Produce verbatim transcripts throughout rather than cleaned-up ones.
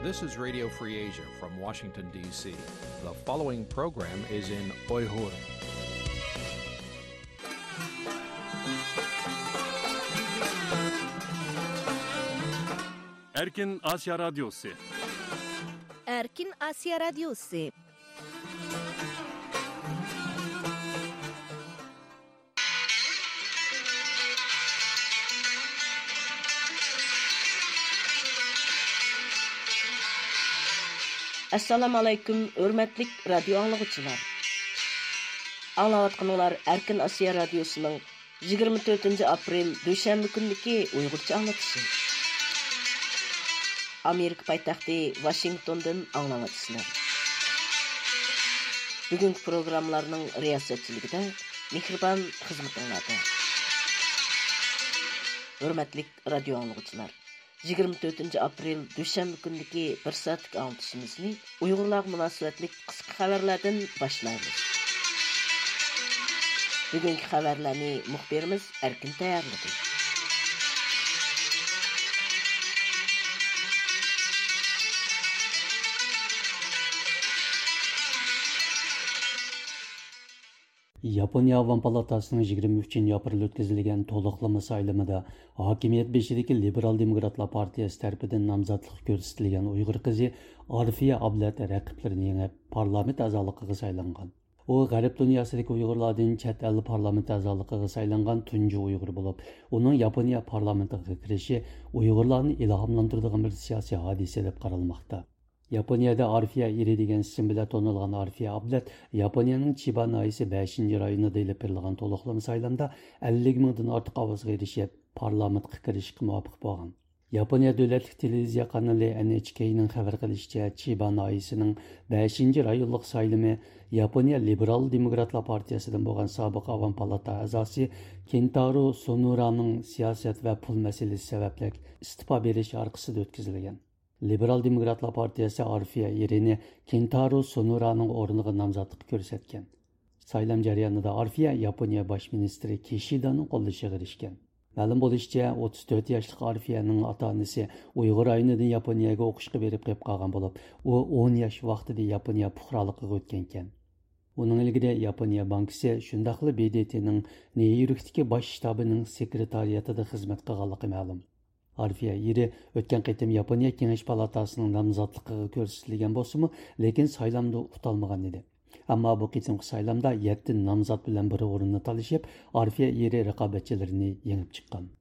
This is Radio Free Asia from Washington, D C. The following program is in Uyghur. Erkin Asya Radyosu. Erkin Asya Radyosu. ئەسسالامۇ ئەلەيكۇم، ھۆرمەتلىك رادىيو ئاڭلىغۇچىلار. ئاڭلاۋاتقىنىڭلار ئەركىن ئاسىيا رادىيوسىنىڭ يىگىرمە تۆتىنچى ئاپرېل دۈشەنبە كۈنىدىكى ئۇيغۇرچە ئاڭلىتىشى. ئامېرىكا پايتەختى ۋاشىنگتوندىن ئاڭلاۋاتىسىلەر. بۈگۈنكى پروگراممىلارنىڭ رىياسەتچىلىكىدە مېھرىبان خىزمىتىڭلاردا. ھۆرمەتلىك رادىيو ئاڭلىغۇچىلار، يىگىرمە تۆتىنچى ئاپرېل دۈشەنبە كۈنىدىكى بىر سائەتلىك ئاڭلىتىشىمىزنى ئۇيغۇرلارغا مۇناسىۋەتلىك قىسقا خەۋەرلەردىن باشلايمىز. بۈگۈنكى خەۋەرلەرنى مۇخبىرىمىز ئەركىن تەييارلىدى. ياپونىيە ئاۋام پالاتاسىنىڭ يىگىرمە ئۈچىنچى ئاپرېل ئۆتكۈزۈلگەن تولۇقلىما سايلىمىدا ھاكىمىيەت بېشىدىكى لىبېرال دېموكراتلار پارتىيەسى تەرىپىدىن نامزاتلىققا كۆرسىتىلگەن ئۇيغۇر قىزى ئارفىيە ئابلەت رەقىبلىرىنى يېڭىپ، پارلامېنت ئەزالىقىغا سايلانغان. ئۇ غەرب دۇنياسىدىكى ئۇيغۇرلاردىن چەت ئەل پارلامېنت ئەزالىقىغا سايلانغان تۇنجى ئۇيغۇر بولۇپ، ئۇنىڭ ياپونىيە پارلامېنتىغا كىرىشى ئۇيغۇرلارنى ئىلھاملاندۇرىدىغان بىر سىياسىي ھادىسە دەپ قارالماقتا. ياپونىيەدە ئارفىيە ئېرى دېگەن ئىسىم بىلەن تونۇلغان ئارفىيە ئابلەت ياپونىيەنىڭ چىبا ناھىيەسى بەشىنچى رايونىدا ئېلىپ بېرىلغان تولۇقلىما سايلامدا ئەللىك مىڭدىن ئارتۇق ئاۋازغا ئېرىشىپ، پارلامېنتقا كىرىشكە مۇۋەپپەق بولغان. ياپونىيە دۆلەتلىك تېلېۋىزىيە قانىلى ئېن ئېچ كېينىڭ خەۋەر قىلىشىچە، چىبا ناھىيەسىنىڭ بەشىنچى رايونلۇق سايلىمى ياپونىيە لىبېرال دېموكراتلار پارتىيەسىدىن بولغان سابىق ئاۋام پالاتا ئەزاسى كېنتارو سونۇرانىڭ سىياسەت ۋە پۇل مەسىلىسى سەۋەبلىك ئىستېپا بېرىشى ئارقىسىدا ئۆتكۈزۈلگەن. لىبېرال دېموكراتلار پارتىيەسى ئارفىيە ئېرىنى كېنتارو سونۇرانىڭ ئورنىغا نامزاتلىققا كۆرسەتكەن. سايلام جەريانىدا ئارفىيە ياپونىيە باش مىنىستىرى كىشىدانىڭ قوللىشىغا ئېرىشكەن. مەلۇم بولۇشىچە، ئوتتۇز تۆت ياشلىق ئارفىيەنىڭ ئاتا-ئانىسى ئۇيغۇر رايونىدىن ياپونىيەگە ئوقۇشقا بېرىپ قېلىپ قالغان بولۇپ، ئۇ ئون ياش ۋاقتىدا ياپونىيە پۇقرالىقىغا ئۆتكەنىكەن. ئۇنىڭ ئىلگىرى ياپونىيە بانكىسى، شۇنداقلا ب د ت نىڭ نيۇ يوركتىكى باش شتابىنىڭ سېكرېتارىياتىدا خىزمەت قىلغانلىقى مەلۇم. ئارفىيە ئېرى ئۆتكەن قېتىم ياپونىيە كېڭەش پالاتاسىنىڭ نامزاتلىقىغا كۆرسىتىلگەن بولسىمۇ، لېكىن سايلامدا ئۇتالمىغان ئىدى. ئەمما بۇ قېتىمقى سايلامدا يەتتە نامزات بىلەن بىر ئورۇننى تالىشىپ، ئارفىيە ئېرى رىقابەتچىلىرىنى يېڭىپ چىققان.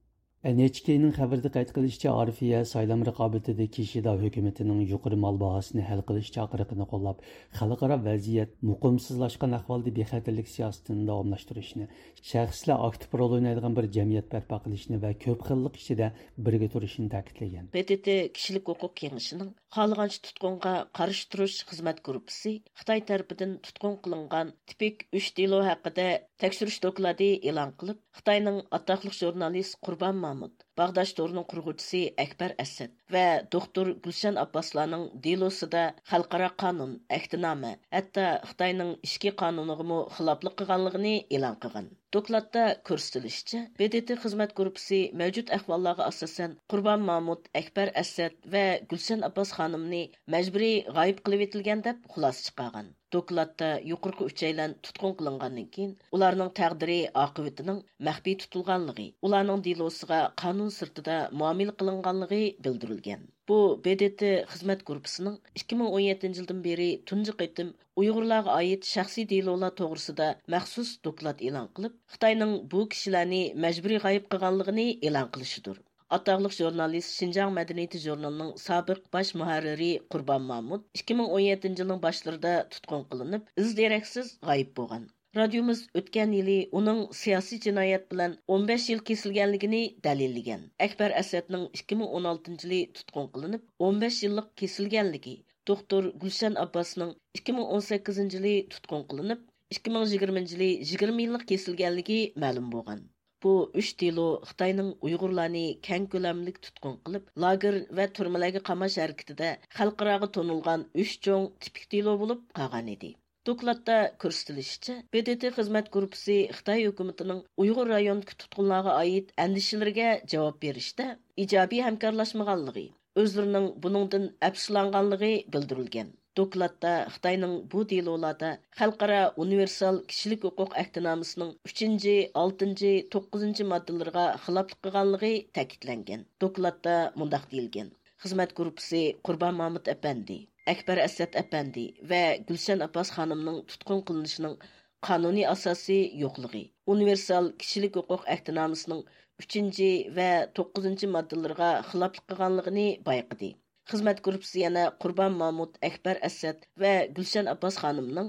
ئېن ئېچ كېينىڭ خەۋىرىدە قەيت قىلىشىچە، ئارفىيە سايلام رىقابىتىدە كىشىدا ھۆكۈمىتىنىڭ يۇقىرى مال باھاسىنى ھەل قىلىش چاقىرىقىنى قوللاپ، خەلقئارا ۋەزىيەت مۇقىمسىزلاشقان ئەھۋالدا بىخەتەرلىك سىياسىتىنى داۋاملاشتۇرۇشنى، شەخسلەر ئاكتىپ رول ئوينايدىغان بىر جەمئىيەت بەرپا قىلىشنى ۋە كۆپ خىللىق ئىچىدە بىرگە تۇرۇشنى تەكىتلىگەن. ب د ت كىشىلىك ھوقۇق كېڭىشىنىڭ خالىغانچە تۇتقۇنغا قارشى تۇرۇش خىزمەت گۇرۇپپىسى خىتاي تەرىپىدىن تۇتقۇن قىلىنغان تىپىك ئۈچ دېلو ھەققىدە تەكشۈرۈش دوكلاتى ئېلان قىلىپ، خىتاينىڭ ئاتاقلىق ژۇرنالىست قۇربان مامۇت، باغداش تورىنىڭ قۇرغۇچىسى ئەكبەر ئەسەت ۋە دوختۇر گۈلشەن ئابباسلارنىڭ دېلوسىدا خەلقئارا قانۇن، ئەھدىنامە، ھەتتا خىتاينىڭ ئىچكى قانۇنىغىمۇ خىلاپلىق قىلغانلىقىنى ئېلان قىلغان. دوكلاتتا كۆرسىتىلىشىچە، ب د ت خىزمەت گۇرۇپپىسى مەۋجۇت ئەھۋاللارغا ئاساسەن، قۇربان مامۇت، ئەكبەر ئەسەت ۋە گۈلشەن ئابباس خانىمنى مەجبۇرىي غايىب قىلىۋېتىلگەن دەپ خۇلاسە چىقارغان. دوكلاتتا يۇقىرىقى ئۈچەيلەن تۇتقۇن قىلىنغاندىن كېيىن، ئۇلارنىڭ تەقدىرى ئاقىۋىتىنىڭ مەخپىي تۇتۇلغانلىقى، ئۇلارنىڭ دېلوسىغا قانۇن سىرتىدا مۇئامىلە قىلىنغانلىقى بىلدۈرۈلگەن. بۇ ب د ت خىزمەت گۇرۇپپىسىنىڭ ئىككى مىڭ ئون يەتتىنچى يىلدىن بېرى تۇنجى قېتىم ئۇيغۇرلارغا ئائىت شەخسىي دېلولار توغرىسىدا مەخسۇس دوكلات ئېلان قىلىپ، خىتاينىڭ بۇ كىشىلەرنى مەجبۇرىي غايىب قىلغانلىقىنى ئېلان قىلىشىدۇر. ئاتاقلىق ژۇرنالىست، شىنجاڭ مەدەنىيىتى ژۇرنىلىنىڭ سابىق باش مۇھەررىرى قۇربان مامۇت ئىككى مىڭ ئون يەتتىنچى يىلنىڭ باشلىرىدا تۇتقۇن قىلىنىپ، ئىز دېرەكسىز غايىب بولغان. رادىيومىز ئۆتكەن يىلى ئۇنىڭ سىياسىي جىنايەت بىلەن ئون بەش يىل كېسىلگەنلىكىنى دەلىللىگەن. ئەكبەر ئەسەتنىڭ ئىككى مىڭ ئون ئالتىنچى يىلى تۇتقۇن قىلىنىپ، ئون بەش يىللىق كېسىلگەنلىكى، دوختۇر گۈلشەن ئابباسنىڭ ئىككى مىڭ ئون سەككىزىنچى يىلى تۇتقۇن قىلىنىپ، ئىككى مىڭ يىگىرمىنچى يىلى يىگىرمە يىللىق كېسىلگەنلىكى مەلۇم بولغان. بۇ ئۈچ دېلو خىتاينىڭ ئۇيغۇرلارنى كەڭ كۆلەملىك تۇتقۇن قىلىپ، لاگېر ۋە تۈرمىلەرگە قاماش ھەرىكىتىدە خەلقئاراغا تونۇلغان ئۈچ چوڭ تىپىك دېلو بولۇپ قالغانىدى. دوكلاتتا كۆرسىتىلىشىچە، ب د ت خىزمەت گۇرۇپپىسى خىتاي ھۆكۈمىتىنىڭ ئۇيغۇر رايونىدىكى تۇتقۇنلارغا ئائىت ئەندىشىلىرىگە جاۋاب بېرىشتە ئىجابىي ھەمكارلاشمىغانلىقى، ئۆزلىرىنىڭ بۇنىڭدىن ئەپسۇسلانغانلىقى بىلدۈرۈلگەن. دوكلاتتا خىتاينىڭ بۇ دېلولاردا خەلقئارا ئۇنىۋېرسال كىشىلىك ھوقۇق ئەھدىنامىسىنىڭ ئۈچىنچى، ئالتىنچى، توققۇزىنچى ماددىلىرىغا خىلاپلىق قىلغانلىقى تەكىتلەنگەن. دوكلاتتا مۇنداق دېيىلگەن: خىزمەت گۇرۇپپىسى قۇربان مامۇت ئەپەندى، ئەكبەر ئەسەت ئەپەندى ۋە گۈلشەن ئابباس خانىمنىڭ تۇتقۇن قىلىنىشىنىڭ قانۇنىي ئاساسى يوقلۇقى، ئۇنىۋېرسال كىشىلىك ھوقۇق ئەھدىنامىسىنىڭ ئۈچىنچى ۋە توققۇزىنچى ماددىلىرىغا خىلاپلىق قىلغانلىقىنى بايقىدى. خىزمەت گۇرۇپپىسى يەنە قۇربان مامۇت، ئەكبەر ئەسەت ۋە گۈلشەن ئابباس خانىمنىڭ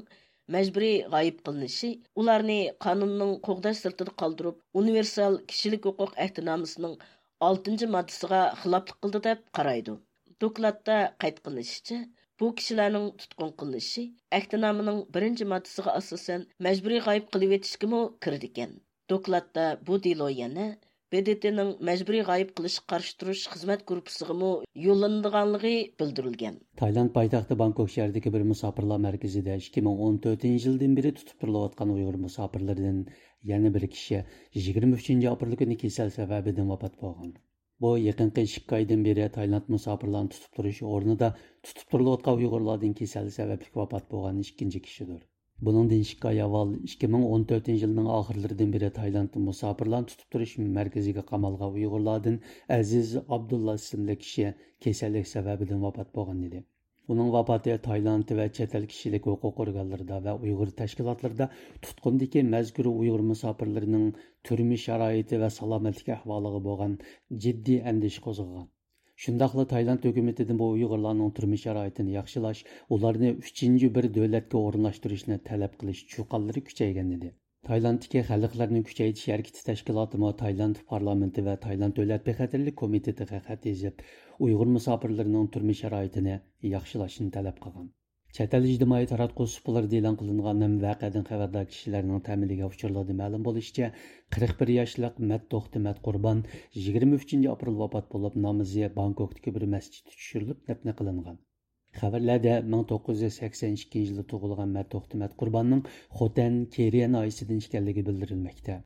مەجبۇرىي غايىب قىلىنىشى، ئۇلارنى قانۇننىڭ قوغداش سىرتىدا قالدۇرۇپ، ئۇنىۋېرسال كىشىلىك ھوقۇق ئەھدىنامىسىنىڭ ئالتىنچى ماددىسىغا خىلاپلىق قىلدى، دەپ قارايدۇ. دوكلاتتا قەيت قىلىنىشىچە، بۇ كىشىلەرنىڭ تۇتقۇن قىلىنىشى ئەھدىنامىنىڭ بىرىنچى ماددىسىغا ئاساسەن مەجبۇرىي غايىب قىلىۋېتىشكىمۇ كىرىدىكەن. دوكلاتتا بۇ دېلو يەنە ب د ت نىڭ مەجبۇرىي غايىب قىلىشقا قارشى تۇرۇش خىزمەت گۇرۇپپىسىغىمۇ يوللىنىدىغانلىقى بىلدۈرۈلگەن. تايلاند پايتەختى بانكوك شەھىرىدىكى بىر مۇساپىرلار مەركىزىدە ئىككى مىڭ ئون تۆتىنچى يىلدىن بېرى تۇتۇپ تۇرۇلۇۋاتقان ئۇيغۇر مۇساپىرلىرىدىن يەنە بىر كىشى يىگىرمە ئۈچىنچى ئاپرېل كۈنى كېسەل سەۋەبىدىن ۋاپات بولغان. بۇ يېقىنقى ئىككى ئايدىن بېرى تايلاند مۇساپىرلارنى تۇتۇپ تۇرۇش ئورنىدا تۇتۇپ تۇرۇلۇۋاتقان ئۇيغۇرلاردىن كېسەل سەۋەبلىك ۋاپات بولغان ئىككىنچى كىشىدۇر. بۇنىڭدىن ئىككى ئاي ئاۋۋال، ئىككى مىڭ ئون تۆتىنچى يىلنىڭ ئاخىرلىرىدىن بېرى تايلاندتا مۇساپىرلارنى تۇتۇپ تۇرۇش مەركىزىگە قامالغان ئۇيغۇرلاردىن ئەزىز ئابدۇللا ئىسىملىك كىشى كېسەللىك سەۋەبىدىن ۋاپات بولغان ئىدى. ئۇنىڭ ۋاپاتى تايلاند ۋە چەت ئەل كىشىلىك ھوقۇق ئورگانلىرىدا ۋە ئۇيغۇر تەشكىلاتلىرىدا تۇتقۇندىكى مەزكۇر ئۇيغۇر مۇساپىرلىرىنىڭ تۈرمە شارائىتى ۋە سالامەتلىك ئەھۋالىغا بولغان جىددىي ئەندىشە قوزغىغان. شۇنداقلا تايلاند ھۆكۈمىتىدىن بۇ ئۇيغۇرلارنىڭ تۈرمە شارائىتىنى ياخشىلاش، ئۇلارنى ئۈچىنچى بىر دۆلەتكە ئورۇنلاشتۇرۇشنى تەلەپ قىلىش چۇقانلىرى كۈچەيگەن ئىدى. تايلاندتىكى خەلقلەرنى كۈچەيتىش ھەرىكىتى تەشكىلاتىمۇ تايلاند پارلامېنتى ۋە تايلاند دۆلەت بىخەتەرلىك كومىتېتىغا خەت يېزىپ، ئۇيغۇر مۇساپىرلىرىنىڭ تۈرمە شارائىتىنى ياخشىلاشنى تەلەپ قىلغان. چەت ئەل ئىجتىمائىي تاراتقۇ سۇپىلىرىدا ئېلان قىلىنغان ھەم ۋەقەدىن خەۋەردار كىشىلەرنىڭ تەمىنلىگەن ئۇچۇرلىرىدا مەلۇم بولۇشىچە، قىرىق بىر ياشلىق مەت توختى مەت قۇربان يىگىرمە ئۈچىنچى ئاپرېل ۋاپات بولۇپ، نامىزى بانكوكتىكى بىر مەسچىتتە چۈشۈرۈلۈپ، دەپنە قىلىنغان. خەۋەرلەردە مىڭ توققۇز يۈز سەكسەن ئىككىنچى يىلى تۇغۇلغان مەت توختى مەت قۇرباننىڭ خوتەن، كېرىيە ناھىيەسىدىن ئىكەنلىكى بىلدۈرۈلمەكتە.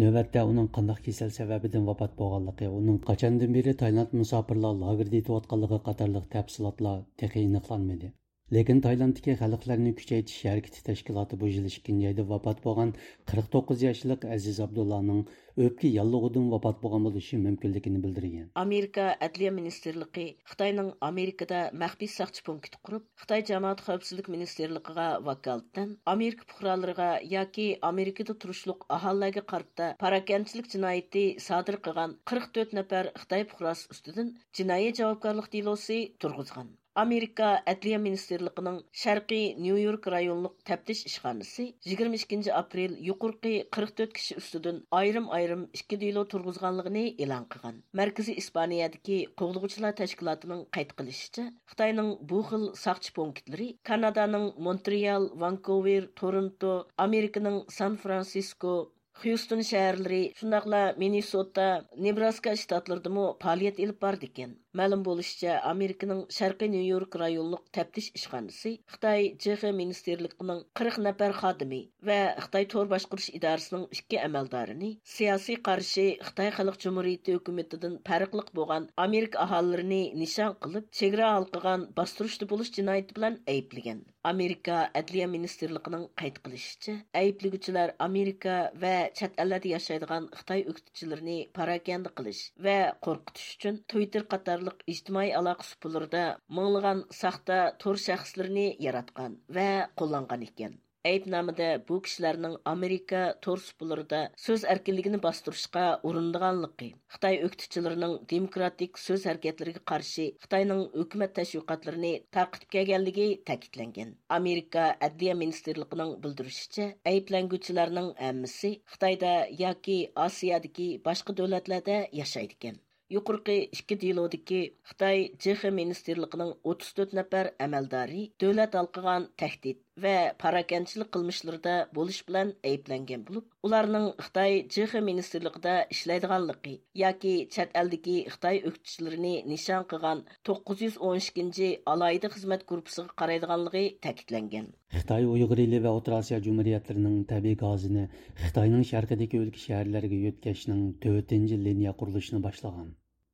نۆۋەتتە ئۇنىڭ قانداق كېسەل سەۋەبىدىن ۋاپات بولغانلىقى، ئۇنىڭ قاچاندىن بېرى تايلاند مۇساپىرلار لاگېرىدا يېتىۋاتقانلىقى قاتارلىق تەپسىلاتلار تېخى ئېنىقلانمىدى. لېكىن تايلاندتىكى خەلقلەرنى كۈچەيتىش ھەرىكىتى تەشكىلاتى بۇ يىل ئىككىنچى ئايدا ۋاپات بولغان قىرىق توققۇز ياشلىق ئەزىز ئابدۇللانىڭ ئۆپكە ياللۇغىدىن ۋاپات بولغان بولۇشى مۇمكىنلىكىنى بىلدۈرگەن. ئامېرىكا ئەدلىيە مىنىستىرلىقى خىتاينىڭ ئامېرىكىدا مەخپىي ساقچى پونكىتى قۇرۇپ، خىتاي جامائەت خەۋپسىزلىك مىنىستىرلىقىغا ۋاكالىتەن ئامېرىكا پۇقرالىرىغا ياكى ئامېرىكىدا تۇرۇشلۇق ئاھالىلەرگە قارىتا پاراكەندىچىلىك جىنايىتى سادىر قىلغان قىرىق تۆت نەپەر خىتاي پۇقراسى ئۈستىدىن جىنايى جاۋابكارلىق دېلوسى تۇرغۇزغان. ئامېرىكا ئەدلىيە مىنىستىرلىقىنىڭ شەرقىي نيۇ يورك رايونلۇق تەپتىش ئىشخانىسى يىگىرمە ئىككىنچى ئاپرېل يۇقىرىقى قىرىق تۆت كىشى ئۈستىدىن ئايرىم-ئايرىم ئىككى دېلو تۇرغۇزغانلىقىنى ئېلان قىلغان. مەركىزىي ئىسپانىيەدىكى قوغلىغۇچىلار تەشكىلاتىنىڭ قەيت قىلىشىچە، خىتاينىڭ بۇ خىل ساقچى پونكىتلىرى كانادانىڭ مونترېئال، ۋانكوۋېر، تورونتو، ئامېرىكىنىڭ سان فرانسىسكو، خيۇستون شەھەرلىرى، شۇنداقلا مىننېسوتا، نېبراسكا شتاتلىرىدىمۇ پائالىيەت ئېلىپ بارىدىكەن. مەلۇم بولۇشىچە، ئامېرىكىنىڭ شەرقىي نيۇ يورك رايونلۇق تەپتىش ئىشخانىسى خىتاي ج خ مىنىستىرلىقىنىڭ قىرىق نەپەر خادىمى ۋە خىتاي تور باشقۇرۇش ئىدارىسىنىڭ ئىككى ئەمەلدارىنى سىياسىي قارشى خىتاي خەلق جۇمھۇرىيىتى ھۆكۈمىتىدىن پەرقلىق بولغان ئامېرىكا ئاھالىلىرىنى نىشان قىلىپ، چېگرا ھالقىغان باستۇرۇشتا بولۇش جىنايىتى بىلەن ئەيىبلىگەن. ئامېرىكا ئەدلىيە مىنىستىرلىقىنىڭ قەيت قىلىشىچە، ئەيىبلىگۈچىلەر ئامېرىكا ۋە چەت ئەللەردە ياشايدىغان خىتاي ئۆكتىچىلىرىنى پاراكەندە قىلىش ۋە قورقۇتۇش ئۈچۈن تۋىتتېر قاتارلىق ئىجتىمائىي ئالاقە سۇپىلىرىدا مىڭلىغان ساختا تور شەخسلىرىنى ياراتقان ۋە قوللانغان ئىكەن. ئەيىبنامىدە بۇ كىشىلەرنىڭ ئامېرىكا تور سۇپىلىرىدا سۆز ئەركىنلىكىنى باستۇرۇشقا ئۇرۇنىدىغانلىقى، خىتاي ئۆكتىچىلىرىنىڭ دېموكراتىك سۆز ھەرىكەتلىرىگە قارشى خىتاينىڭ ھۆكۈمەت تەشۋىقاتلىرىنى تارقىتىپ كەلگەنلىكى تەكىتلەنگەن. ئامېرىكا ئەدلىيە مىنىستىرلىقىنىڭ بىلدۈرۈشىچە، ئەيىبلەنگۈچىلەرنىڭ ھەممىسى خىتايدا ياكى ئاسىيادىكى باشقا دۆلەتلەردە ياشايدىكەن. يۇقىرىقى ئىككى دېلودىكى خىتاي ج خ مىنىستىرلىقىنىڭ ئوتتۇز تۆت نەپەر ئەمەلدارى دۆلەت ھالقىغان تەھدىت ۋە پاراكەندىچىلىك قىلمىشلىرىدا بولۇش بىلەن ئەيىبلەنگەن بولۇپ، ئۇلارنىڭ خىتاي ج خ مىنىستىرلىقىدا ئىشلەيدىغانلىقى ياكى چەت ئەلدىكى خىتاي ئۆكتىچىلىرىنى نىشان قىلغان توققۇز يۈز ئون ئىككىنچى ئالاھىدە خىزمەت گۇرۇپپىسىغا قارايدىغانلىقى تەكىتلەنگەن. خىتاي ئۇيغۇر ئېلى ۋە ئوتتۇرا ئاسىيا جۇمھۇرىيەتلىرىنىڭ تەبىئىي گازىنى خىتاينىڭ شەرقىدىكى ئۆلكە شەھەرلەرگە يۆتكەشنىڭ تۆتىنچى لىنىيە قۇرۇلۇشىنى باشلىغان.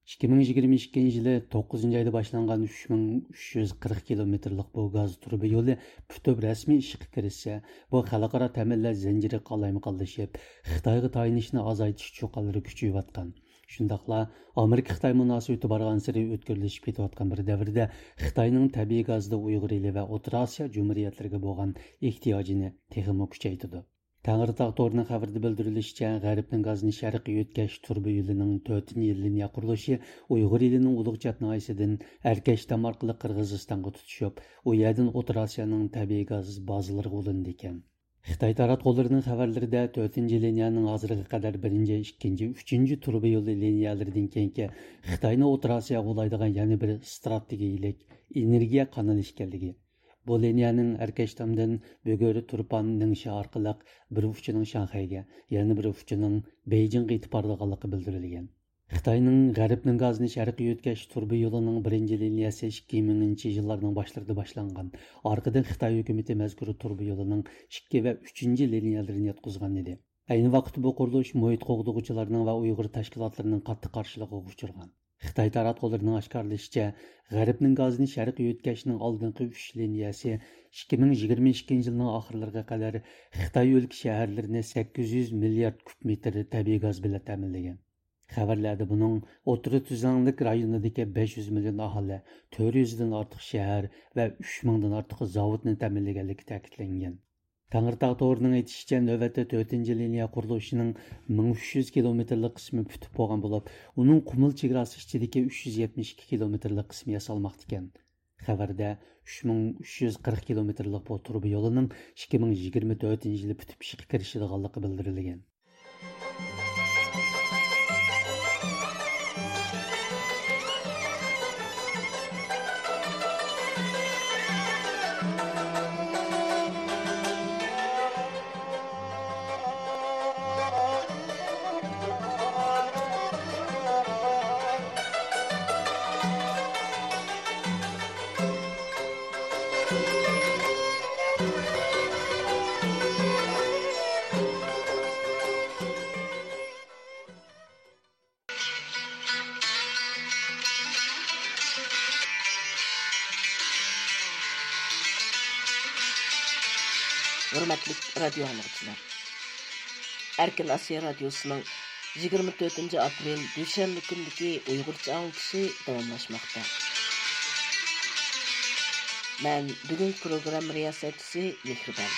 ئىككى مىڭ يىگىرمە ئىككىنچى يىلى توققۇزىنچى ئايدا باشلانغان ئۈچ مىڭ ئۈچ يۈز قىرىق كىلومېتىرلىق بۇ گاز تۇرۇبا يولى پۈتۈپ رەسمىي ئىشقا كىرىشسە، بۇ خەلقئارا تەمىنلەش زەنجىرى قالايمىقانلىشىپ، خىتايغا تايىنىشنى ئازايتىش چۇقانلىرى كۈچىيىۋاتقان. شۇنداقلا ئامېرىكا-خىتاي مۇناسىۋىتى بارغانسېرى ئۆتكۈرلىشىپ كېتىۋاتقان بىر دەۋردە خىتاينىڭ تەبىئىي گازدا ئۇيغۇر ئېلى ۋە ئوتتۇرا ئاسىيا جۇمھۇرىيەتلىرىگە بولغان ئېھتىياجىنى تېخىمۇ كۈچەيتىدۇ. تەڭرىتاغ تورىنىڭ خەۋىرىدە بىلدۈرۈلۈشىچە، غەربنىڭ گازىنى شەرققە يۆتكەش تۇرۇبا يولىنىڭ تۆتىنچى لىنىيە قۇرۇلۇشى ئۇيغۇر ئېلىنىڭ ئۇلۇغچات ناھىيەسىدىن ئەركەشتام ئارقىلىق قىرغىزىستانغا تۇتىشىپ، ئۇ يەردىن ئوتتۇرا ئاسىيانىڭ تەبىئىي گاز بازىلىرىغا ئۇلىنىدىكەن. خىتاي تاراتقۇلىرىنىڭ خەۋەرلىرىدە تۆتىنچى لىنىيەنىڭ ھازىرغا قەدەر بىرىنچى، ئىككىنچى، ئۈچىنچى تۇرۇبا يولى لىنىيەلىرىدىن كېيىنكى خىتاينى ئوتتۇرا ئاسىياغا ئۇلايدىغان يەنە بىر ئىستراتېگىيەلىك ئېنېرگىيە قانىلى ئىكەنلىكى، بۇ لىنىيەنىڭ ئەركەشتامدىن بۈگۈر، تۇرپان، نىڭشا ئارقىلىق بىر ئۇچىنىڭ شاڭخەيگە، يەنە بىر ئۇچىنىڭ بېيجىڭغا يېتىپ بارىدىغانلىقى بىلدۈرۈلگەن. خىتاينىڭ غەربنىڭ گازىنى شەرققە يۆتكەش تۇرۇبا يولىنىڭ بىرىنچى لىنىيەسى ئىككى مىڭىنچى يىللارنىڭ باشلىرىدا باشلانغان. ئارقىدىن خىتاي ھۆكۈمىتى مەزكۇر تۇرۇبا يولىنىڭ ئىككى ۋە ئۈچىنچى لىنىيەلىرىنى ياتقۇزغان ئىدى. ئەينى ۋاقىتتا بۇ قۇرۇلۇش مۇھىت قوغدىغۇچىلارنىڭ ۋە ئۇيغۇر تەشكىلاتلىرىنىڭ قاتتىق قارشىلىقىغا ئۇچرىغان. خىتاي تاراتقۇلىرىنىڭ ئاشكارىلىشىچە، غەربنىڭ گازىنى شەرققە يۆتكەشنىڭ ئالدىنقى ئۈچ لىنىيەسى ئىككى مىڭ يىگىرمە ئىككىنچى يىلنىڭ ئاخىرلىرىغا قەدەر خىتاي ئۆلكە شەھەرلىرىنى سەككىز يۈز مىليارد كۇب مېتىر تەبىئىي گاز بىلەن تەمىنلىگەن. خەۋەرلەردە بۇنىڭ ئوتتۇرا تۈزلەڭلىك رايونىدىكى بەش يۈز مىليون ئاھالە، تۆت يۈزدىن ئارتۇق شەھەر ۋە ئۈچ مىڭدىن ئارتۇق زاۋۇتنى تەمىنلىگەنلىكى تەكىتلەنگەن. تەڭرىتاغ تورىنىڭ ئېيتىشىچە، نۆۋەتتە تۆتىنچى لىنىيە قۇرۇلۇشىنىڭ مىڭ ئۈچ يۈز كىلومېتىرلىق قىسمى پۈتۈپ بولغان بولۇپ، ئۇنىڭ قۇمۇل چېگراسى ئىچىدىكى ئۈچ يۈز يەتمىش ئىككى كىلومېتىرلىق قىسمى ياسالماقتا ئىكەن. خەۋەردە ئۈچ مىڭ ئۈچ يۈز قىرىق كىلومېتىرلىق بۇ تۇرۇبا يولىنىڭ ئىككى مىڭ يىگىرمە تۆتىنچى يىلى پۈتۈپ ئىشقا كىرىشىدىغانلىقى بىلدۈرۈلگەن. ھۆرمەتلىك رادىيو ئاڭلىغۇچىلار! ئەركىن ئاسىيا رادىيوسىنىڭ يىگىرمە تۆتىنچى ئاپرېل دۈشەنبە كۈنىدىكى ئۇيغۇرچە ئاڭلىتىشى داۋاملاشماقتا. مەن بۈگۈنكى پروگرامما رىياسەتچىسى مېھرىبان.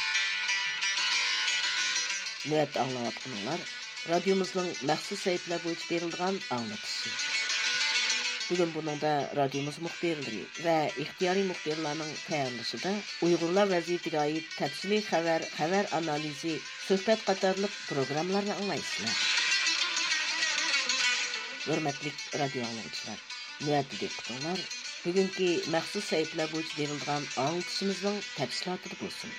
نۆۋەتتە ئاڭلاۋاتقىنىڭلار رادىيومىزنىڭ مەخسۇس سەھىپىلەر بويىچە بېرىلىدىغان ئاڭلىتىشى. بۈگۈن بۇنىڭدا رادىيومىز مۇخبىرلىرى ۋە ئىختىيارىي مۇخبىرلارنىڭ تەييارلىشىدا ئۇيغۇرلار ۋەزىيىتىگە ئائىت تەپسىلىي خەۋەر، خەۋەر ئانالىزى، سۆھبەت قاتارلىق پروگراممىلارنى ئاڭلايسىلەر. ھۆرمەتلىك رادىيو ئاڭلىغۇچىلار! نۆۋەتتە دىققىتىڭلار بۈگۈنكى مەخسۇس سەھىپىلەر بويىچە بېرىلىدىغان ئاڭلىتىشىمىزنىڭ تەپسىلاتىدا بولسۇن.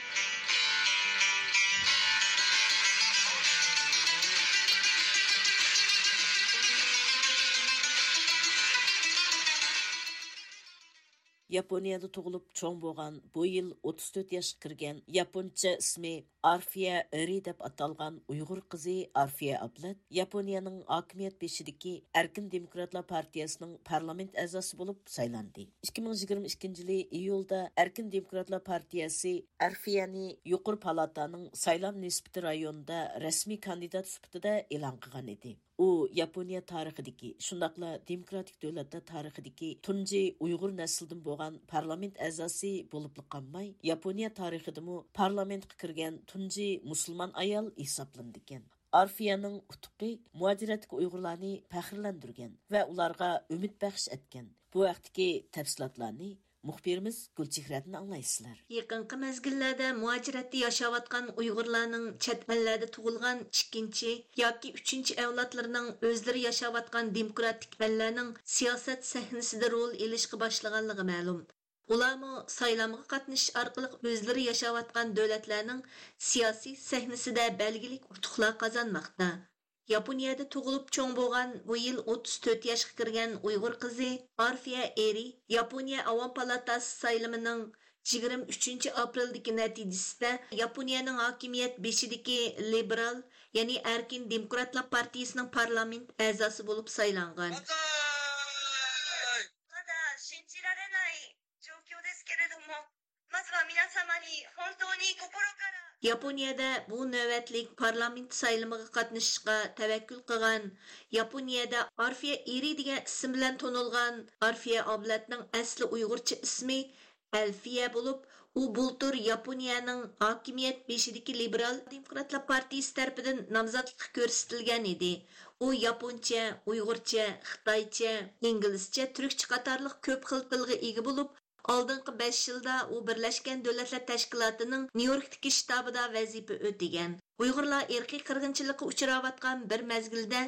ياپونىيەدە تۇغۇلۇپ چوڭ بولغان، بۇ يىل ئوتتۇز تۆت ياشقا كىرگەن، ياپونچە ئىسمى ئارفىيە ئېرى دەپ ئاتالغان ئۇيغۇر قىزى ئارفىيە ئابلەت ياپونىيەنىڭ ھاكىمىيەت بېشىدىكى ئەركىن دېموكراتلار پارتىيەسىنىڭ پارلامېنت ئەزاسى بولۇپ سايلاندى. ئىككى مىڭ يىگىرمە ئىككىنچى يىلى ئىيۇلدا ئەركىن دېموكراتلار پارتىيەسى ئارفىيەنى يۇقىرى پالاتانىڭ سايلام نىسبىتى رايونىدا رەسمىي كاندىدات سۈپىتىدە ئېلان قىلغان ئىدى. ئۇ ياپونىيە تارىخىدىكى، شۇنداقلا دېموكراتىك دۆلەتلەر تارىخىدىكى تۇنجى ئۇيغۇر نەسلىدىن بولغان پارلامېنت ئەزاسى بولۇپلا قالماي، ياپونىيە تارىخىدىمۇ پارلامېنتقا كىرگەن تۇنجى مۇسۇلمان ئايال ھېسابلىنىدىكەن. ئارفىيەنىڭ ئۇتۇقى مۇھاجىرەتتىكى ئۇيغۇرلارنى پەخىرلەندۈرگەن ۋە ئۇلارغا ئۈمىد بەخش ئەتكەن. بۇ ھەقتىكى تەپسىلاتلارنى مۇخبىرىمىز گۈلچېھرەدىن ئاڭلايسىلەر. يېقىنقى مەزگىللەردە مۇھاجىرەتتە ياشاۋاتقان ئۇيغۇرلارنىڭ چەت ئەللەردە تۇغۇلغان ئىككىنچى ياكى ئۈچىنچى ئەۋلادلىرىنىڭ ئۆزلىرى ياشاۋاتقان دېموكراتىك ئەللەرنىڭ سىياسەت سەھنىسىدە رول ئېلىشقا باشلىغانلىقى مەلۇم. ئۇلارمۇ سايلامغا قاتنىشىش ئارقىلىق ئۆزلىرى ياشاۋاتقان دۆلەتلەرنىڭ سىياسىي سەھنىسىدە بەلگىلىك ئۇتۇقلار قازانماقتا. ياپونىيەدە تۇغۇلۇپ چوڭ بولغان، بۇ يىل ئوتتۇز تۆت ياشقا كىرگەن ئۇيغۇر قىزى ئارفىيە ئېرى ياپونىيە ئاۋام پالاتاسى سايلىمىنىڭ يىگىرمە ئۈچىنچى ئاپرېلدىكى نەتىجىسىدە ياپونىيەنىڭ ھاكىمىيەت بېشىدىكى لىبېرال، يەنى ئەركىن دېموكراتلار پارتىيىسىنىڭ پارلامېنت ئەزاسى بولۇپ سايلانغان. ياپونىيەدە بۇ نۆۋەتلىك پارلامېنت سايلىمىغا قاتنىشىشقا تەۋەككۈل قىلغان، ياپونىيەدە ئارفىيە ئېرى دېگەن ئىسىم بىلەن تونۇلغان ئارفىيە ئابلەتنىڭ ئەسلى ئۇيغۇرچە ئىسمى ئەلفىيە بولۇپ، ئۇ بۇلتۇر ياپونىيەنىڭ ھاكىمىيەت بېشىدىكى لىبېرال دېموكراتلار پارتىيىسى تەرىپىدىن نامزاتلىققا كۆرسىتىلگەن ئىدى. ئۇ ياپونچە، ئۇيغۇرچە، خىتايچە، ئىنگلىزچە، تۈركچە قاتارلىق كۆپ خىل تىلغا ئىگە بولۇپ، ئالدىنقى بەش يىلدا ئۇ بىرلەشكەن دۆلەتلەر تەشكىلاتىنىڭ نيۇ يوركتىكى شتابىدا ۋەزىپە ئۆتىگەن. ئۇيغۇرلار ئىرقىي قىرغىنچىلىققا ئۇچراۋاتقان بىر مەزگىلدە،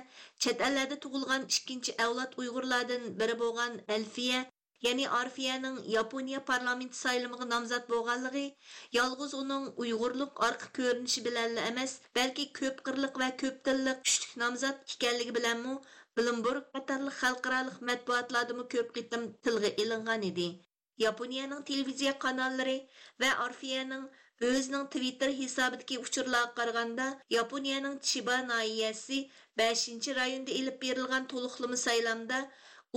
چەت ئەللەردە تۇغۇلغان ئىككىنچى ئەۋلاد ئۇيغۇرلاردىن بىرى بولغان ئەلفىيە، يەنى ئارفىيەنىڭ ياپونىيە پارلامېنت سايلىمىغا نامزات بولغانلىقى يالغۇز ئۇنىڭ ئۇيغۇرلۇق ئارقا كۆرۈنۈشى بىلەنلا ئەمەس، بەلكى كۆپ قىرلىق ۋە كۆپ تىللىق كۈچلۈك نامزات ئىكەنلىكى بىلەنمۇ بلومبېرگ قاتارلىق خەلقئارالىق مەتبۇئاتلاردىمۇ كۆپ قېتىم تىلغا ئېلىنغان ئىدى. ياپونىيەنىڭ تېلېۋىزىيە قاناللىرى ۋە ئارفىيەنىڭ ئۆزىنىڭ تىۋىتتېر ھېسابىدىكى ئۇچۇرلارغا قارىغاندا، ياپونىيەنىڭ چىبا ناھىيەسى بەشىنچى رايوندا ئېلىپ بېرىلغان تولۇقلىما سايلامدا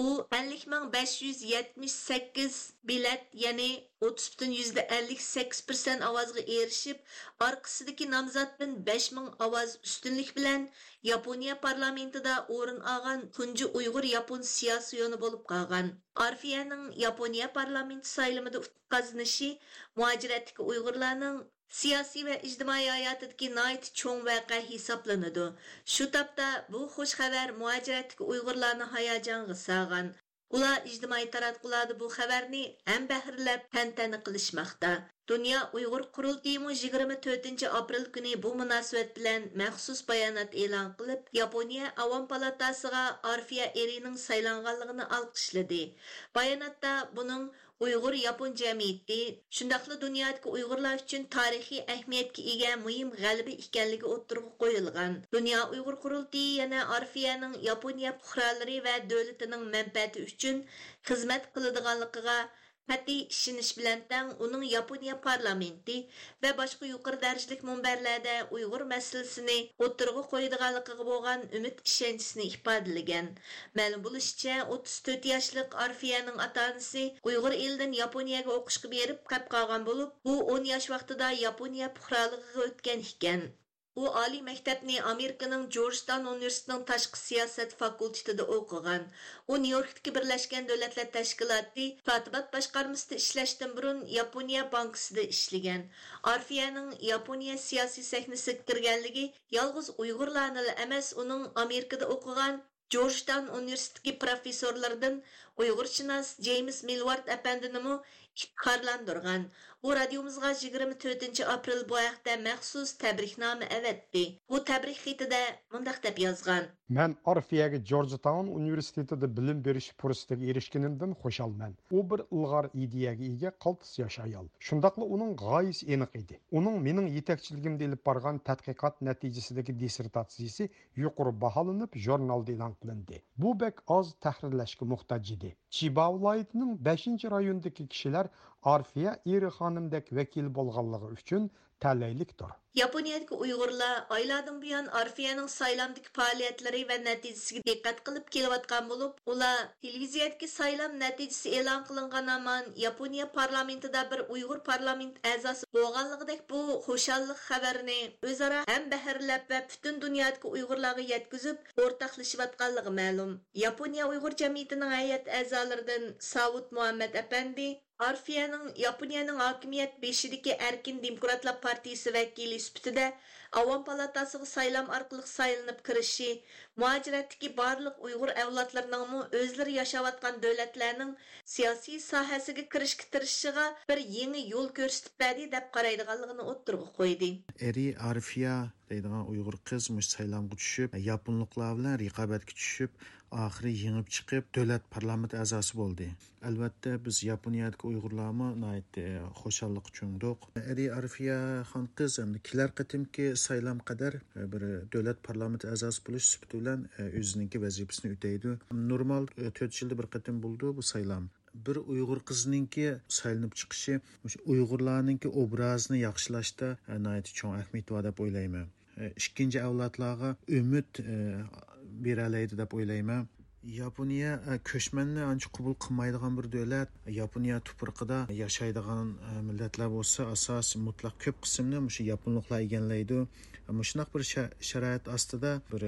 ئۇ ئەللىك مىڭ بەش يۈز يەتمىش سەككىز بېلەت، يەنى ئوتتۇز پۈتۈن يۈزدە ئەللىك سەككىز پىرسەنت ئاۋازغا ئېرىشىپ، ئارقىسىدىكى نامزاتتىن بەش مىڭ ئاۋاز ئۈستۈنلۈك بىلەن ياپونىيە پارلامېنتىدا ئورۇن ئالغان تۇنجى ئۇيغۇر ياپون سىياسىيونى بولۇپ قالغان. ئارفىيەنىڭ ياپونىيە پارلامېنتى سايلىمىدا ئۇتۇق قازىنىشى مۇھاجىرەتتىكى ئۇيغۇرلارنىڭ سىياسىي ۋە ئىجتىمائىي ھاياتىدىكى ناھايىتى چوڭ ۋەقە ھېسابلىنىدۇ. شۇ تاپتا بۇ خۇش خەۋەر مۇھاجىرەتتىكى ئۇيغۇرلارنى ھاياجانغا سالغان. ئۇلار ئىجتىمائىي تاراتقۇلاردا بۇ خەۋەرنى ھەمبەھىرلەپ تەنتەنە قىلىشماقتا. دۇنيا ئۇيغۇر قۇرۇلتىيىمۇ يىگىرمە تۆتىنچى ئاپرېل كۈنى بۇ مۇناسىۋەت بىلەن مەخسۇس بايانات ئېلان قىلىپ، ياپونىيە ئاۋام پالاتاسىغا ئارفىيە ئېرىنىڭ سايلانغانلىقىنى ئالقىشلىدى. باياناتتا بۇنىڭ ئۇيغۇر ياپون جەمئىيىتى، شۇنداقلا دۇنيادىكى ئۇيغۇرلار ئۈچۈن تارىخىي ئەھمىيەتكە ئىگە مۇھىم غەلىبە ئىكەنلىكى ئوتتۇرىغا قويۇلغان. دۇنيا ئۇيغۇر قۇرۇلتىيى يەنە ئارفىيەنىڭ ياپونىيە پۇقرالىرى ۋە دۆلىتىنىڭ مەنپەئەتى ئۈچۈن خىزمەت قىلىدىغانلىقىغا قەتئىي ئىشىنىش بىلەن تەڭ، ئۇنىڭ ياپونىيە پارلامېنتى ۋە باشقا يۇقىرى دەرىجىلىك مۇنبەرلەردە ئۇيغۇر مەسىلىسىنى ئوتتۇرىغا قويىدىغانلىقىغا بولغان ئۈمىد ئىشەنچىسىنى ئىپادىلىگەن. مەلۇم بولۇشىچە، ئوتتۇز تۆت ياشلىق ئارفىيەنىڭ ئاتا-ئانىسى ئۇيغۇر ئېلىدىن ياپونىيەگە ئوقۇشقا بېرىپ قېلىپ قالغان بولۇپ، ئۇ ئون ياش ۋاقتىدا ياپونىيە پۇقرالىقىغا ئۆتكەن ئىكەن. ئۇ ئالىي مەكتەپنى ئامېرىكىنىڭ جورجتاون ئۇنىۋېرسىتېتىنىڭ تاشقى سىياسەت فاكۇلتېتىدا ئوقۇغان. ئۇ نيۇ يوركتىكى بىرلەشكەن دۆلەتلەر تەشكىلاتى كاتىبات باشقارمىسىدا ئىشلەشتىن بۇرۇن ياپونىيە بانكىسىدا ئىشلىگەن. ئارفىيەنىڭ ياپونىيە سىياسىي سەھنىسىگە كىرگەنلىكى يالغۇز ئۇيغۇرلارنىلا ئەمەس، ئۇنىڭ ئامېرىكىدا ئوقۇغان جورجتاون ئۇنىۋېرسىتېتىدىكى پروفېسسورلىرىدىن ئۇيغۇرشۇناس جېيمىس مىلۋارد ئەپەندىنىمۇ ئىپتىخارلاندۇرغان. ئۇ رادىيومىزغا يىگىرمە تۆتىنچى ئاپرېل بۇ ھەقتە مەخسۇس تەبرىكنامە ئەۋەتتى. ئۇ تەبرىك خېتىدە مۇنداق دەپ يازغان. مەن ئارفىيەگە جورجتاون ئۇنىۋېرسىتېتىدا بىلىم بېرىش پۇرسىتىگە ئېرىشكىنىمدىن خۇشالمەن. ئۇ بىر ئىلغار ئىدىيەگە ئىگە قالتىس ياش ئايال. شۇنداقلا ئۇنىڭ غايىسى ئېنىق ئىدى. ئۇنىڭ مېنىڭ يېتەكچىلىكىمدە ئېلىپ بارغان تەتقىقات نەتىجىسىدىكى دىسسېرتاتسىيىسى يۇقىرى باھالىنىپ، ژۇرنالدا ئېلان قىلىندى. بۇ بەك ئاز تەھرىرلەشكە موھتاج ئىدى. چىبا ۋىلايىتىنىڭ بەشىنچى رايونىدىكى كىشىلەر ئارفىيە ئېرى خانىمدەك ۋەكىل بولغانلىقى ئۈچۈن تەلەيلىكتۇر. ياپونىيەدىكى ئۇيغۇرلار ئايلاردىن بۇيان ئارفىيەنىڭ سايلامدىكى پائالىيەتلىرى ۋە نەتىجىسىگە دىققەت قىلىپ كېلىۋاتقان بولۇپ، ئۇلار تېلېۋىزىيەدىكى سايلام نەتىجىسى ئېلان قىلىنغان ھامان ياپونىيە پارلامېنتىدا بىر ئۇيغۇر پارلامېنت ئەزاسى بولغانلىقىدەك بۇ خۇشاللىق خەۋىرىنى ئۆزئارا ھەمبەھىرلەپ ۋە پۈتۈن دۇنيادىكى ئۇيغۇرلارغا يەتكۈزۈپ ئورتاقلىشىۋاتقانلىقى مەلۇم. ياپونىيە ئۇيغۇر جەمئىيىتىنىڭ ھەيئەت ئەزالىرىدىن ساۋۇت مۇھەممەت ئەپەندى، ئارفىيەنىڭ ياپونىيەنىڭ ھاكىمىيەت بېشىدىكى ئەركىن دېموكراتلار پارتىيىسى ۋەكىلى سۈپىتىدە ئاۋام پالاتاسىغا سايلام ئارقىلىق سايلىنىپ كىرىشى، مۇھاجىرەتتىكى بارلىق ئۇيغۇر ئەۋلادلىرىنىڭمۇ ئۆزلىرى ياشاۋاتقان دۆلەتلەرنىڭ سىياسىي ساھەسىگە كىرىشكە تىرىشىشىغا بىر يېڭى يول كۆرسىتىپ بەردى، دەپ قارايدىغانلىقىنى ئوتتۇرىغا قويدى. ئېرى ئارفىيە دەيدىغان ئۇيغۇر قىز مۇشۇ سايلامغا چۈشۈپ، ياپونلۇقلار بىلەن رىقابەتكە چۈشۈپ، ئاخىرى يېڭىپ چىقىپ، دۆلەت پارلامېنت ئەزاسى بولدى. ئەلۋەتتە، بىز ياپونىيەدىكى ئۇيغۇرلارمۇ ناھايىتى خۇشاللىققا چۆمدۇق. ئەرى ئارفىيە خان قىز ئەمدى كېلەر قېتىمقى سايلام قەدەر بىر دۆلەت پارلامېنت ئەزاسى بولۇش سۈپىتى بىلەن ئۆزىنىڭكى ۋەزىپىسىنى ئۆتەيدۇ. نورمال تۆت يىلدا بىر قېتىم بولىدۇ بۇ سايلام. بىر ئۇيغۇر قىزنىڭكى سايلىنىپ چىقىشى مۇشۇ ئۇيغۇرلارنىڭكى ئوبرازىنى ياخشىلاشتا ناھايىتى چوڭ ئەھمىيىتى بار دەپ ئويلايمەن. ئىككىنچى ئەۋلادلارغا ئۈمىد بېرەلەيدۇ دەپ ئويلايمەن. ياپونىيە، ئە، كۆچمەننى ئانچە قوبۇل قىلمايدىغان بىر دۆلەت. ياپونىيە تۇپرىقىدا ياشايدىغان، ئە، مىللەتلەر بولسا ئاساسىي مۇتلەق كۆپ قىسمىنى مۇشۇ ياپونلۇقلار ئىگىلەيدۇ. مۇشۇنداق بىر شا-، شارائىت ئاستىدا بىر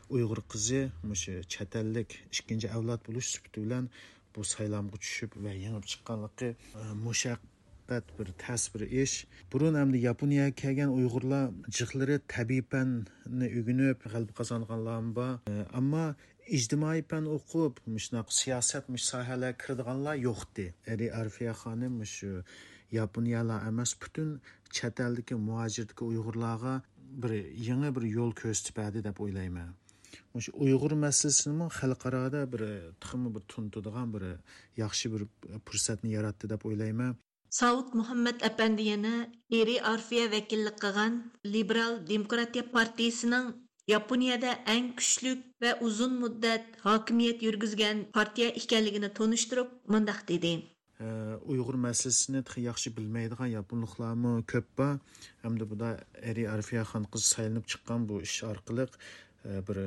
ئۇيغۇر قىزى مۇشۇ چەت ئەللىك ئىككىنچى ئەۋلاد بولۇش سۈپىتى بىلەن بۇ سايلامغا چۈشۈپ ۋە يېڭىپ چىققانلىقى، ئە، مۇشەققەت بىر تەس بىر ئىش. بۇرۇن ئەمدى ياپونىيەگە كەلگەن ئۇيغۇرلار جىقلىرى تەبىئىي پەننى ئۆگىنىپ غەلىبە قازانغانلارمۇ بار. ئە، ئەمما ئىجتىمائىي پەن ئوقۇپ، مۇشۇنداق سىياسەت، مۇشۇ ساھەلەرگە كىرىدىغانلار يوقتى. ئەرى ئارفىيە خانىم مۇشۇ ياپونىيەلا ئەمەس، پۈتۈن چەت ئەلدىكى مۇھاجىرەتتىكى ئۇيغۇرلارغا بىر يېڭى بىر يول كۆرسىتىپ بەردى دەپ ئويلايمەن. مۇشۇ ئۇيغۇر مەسىلىسىنىمۇ خەلقئارادا بىر، تېخىمۇ بىر تونۇتىدىغان بىر ياخشى بىر پۇرسەتنى ياراتتى دەپ ئويلايمەن. ساۋۇت مۇھەممەد ئەپەندى يەنە ئېرى ئارفىيە ۋەكىللىك قىلغان لىبېرال دېموكراتىيە پارتىيىسىنىڭ ياپونىيەدە ئەڭ كۈچلۈك ۋە ئۇزۇن مۇددەت ھاكىمىيەت يۈرگۈزگەن پارتىيە ئىكەنلىكىنى تونۇشتۇرۇپ مۇنداق دېدى. ئۇيغۇر مەسىلىسىنى تېخى ياخشى بىلمەيدىغان ياپونلۇقلارمۇ كۆپ بار. ھەمدە بۇدا ئېرى ئارفىيە خانقىز سايلىنىپ چىققان بۇ ئىش ئارقىلىق، ئە، بىر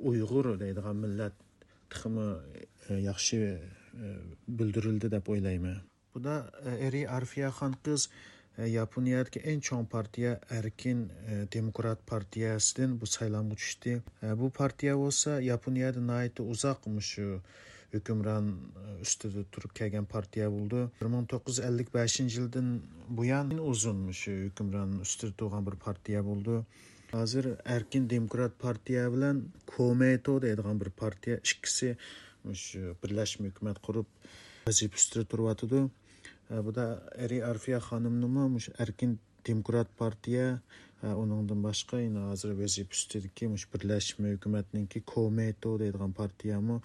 ئۇيغۇر دەيدىغان مىللەت تېخىمۇ، ئە، ياخشى، ئە، بىلدۈرۈلدى دەپ ئويلايمەن. بۇدا، ئە، ئېرى ئارفىيە خانقىز، ئە، ياپونىيەدىكى ئەڭ چوڭ پارتىيە ئەركىن، ئە، دېموكرات پارتىيەسىدىن بۇ سايلامغا چۈشتى. ئە، بۇ پارتىيە بولسا ياپونىيەدە ناھايىتى ئۇزاق مۇشۇ ھۆكۈمران، ئە، ئۈستىدە تۇرۇپ كەلگەن پارتىيە بولىدۇ. بىر مىڭ توققۇز يۈز ئەللىك بەشىنچى يىلدىن بۇيان ئۇزۇن مۇشۇ ھۆكۈمران ئۈستىدە تۇرغان بىر پارتىيە بولىدۇ. ھازىر ئەركىن دېموكرات پارتىيە بىلەن كومېيتو دەيدىغان بىر پارتىيە ئىككىسى مۇشۇ بىرلەشمە ھۆكۈمەت قۇرۇپ ۋەزىپە ئۈستىدە تۇرۇۋاتىدۇ. ئە، بۇدا ئېرى ئارفىيە خانىمنىمۇ مۇشۇ ئەركىن دېموكرات پارتىيە، ئە، ئۇنىڭدىن باشقا يەنە ھازىر ۋەزىپە ئۈستىدىكى مۇشۇ بىرلەشمە ھۆكۈمەتنىڭكى كومېيتو دەيدىغان پارتىيەمۇ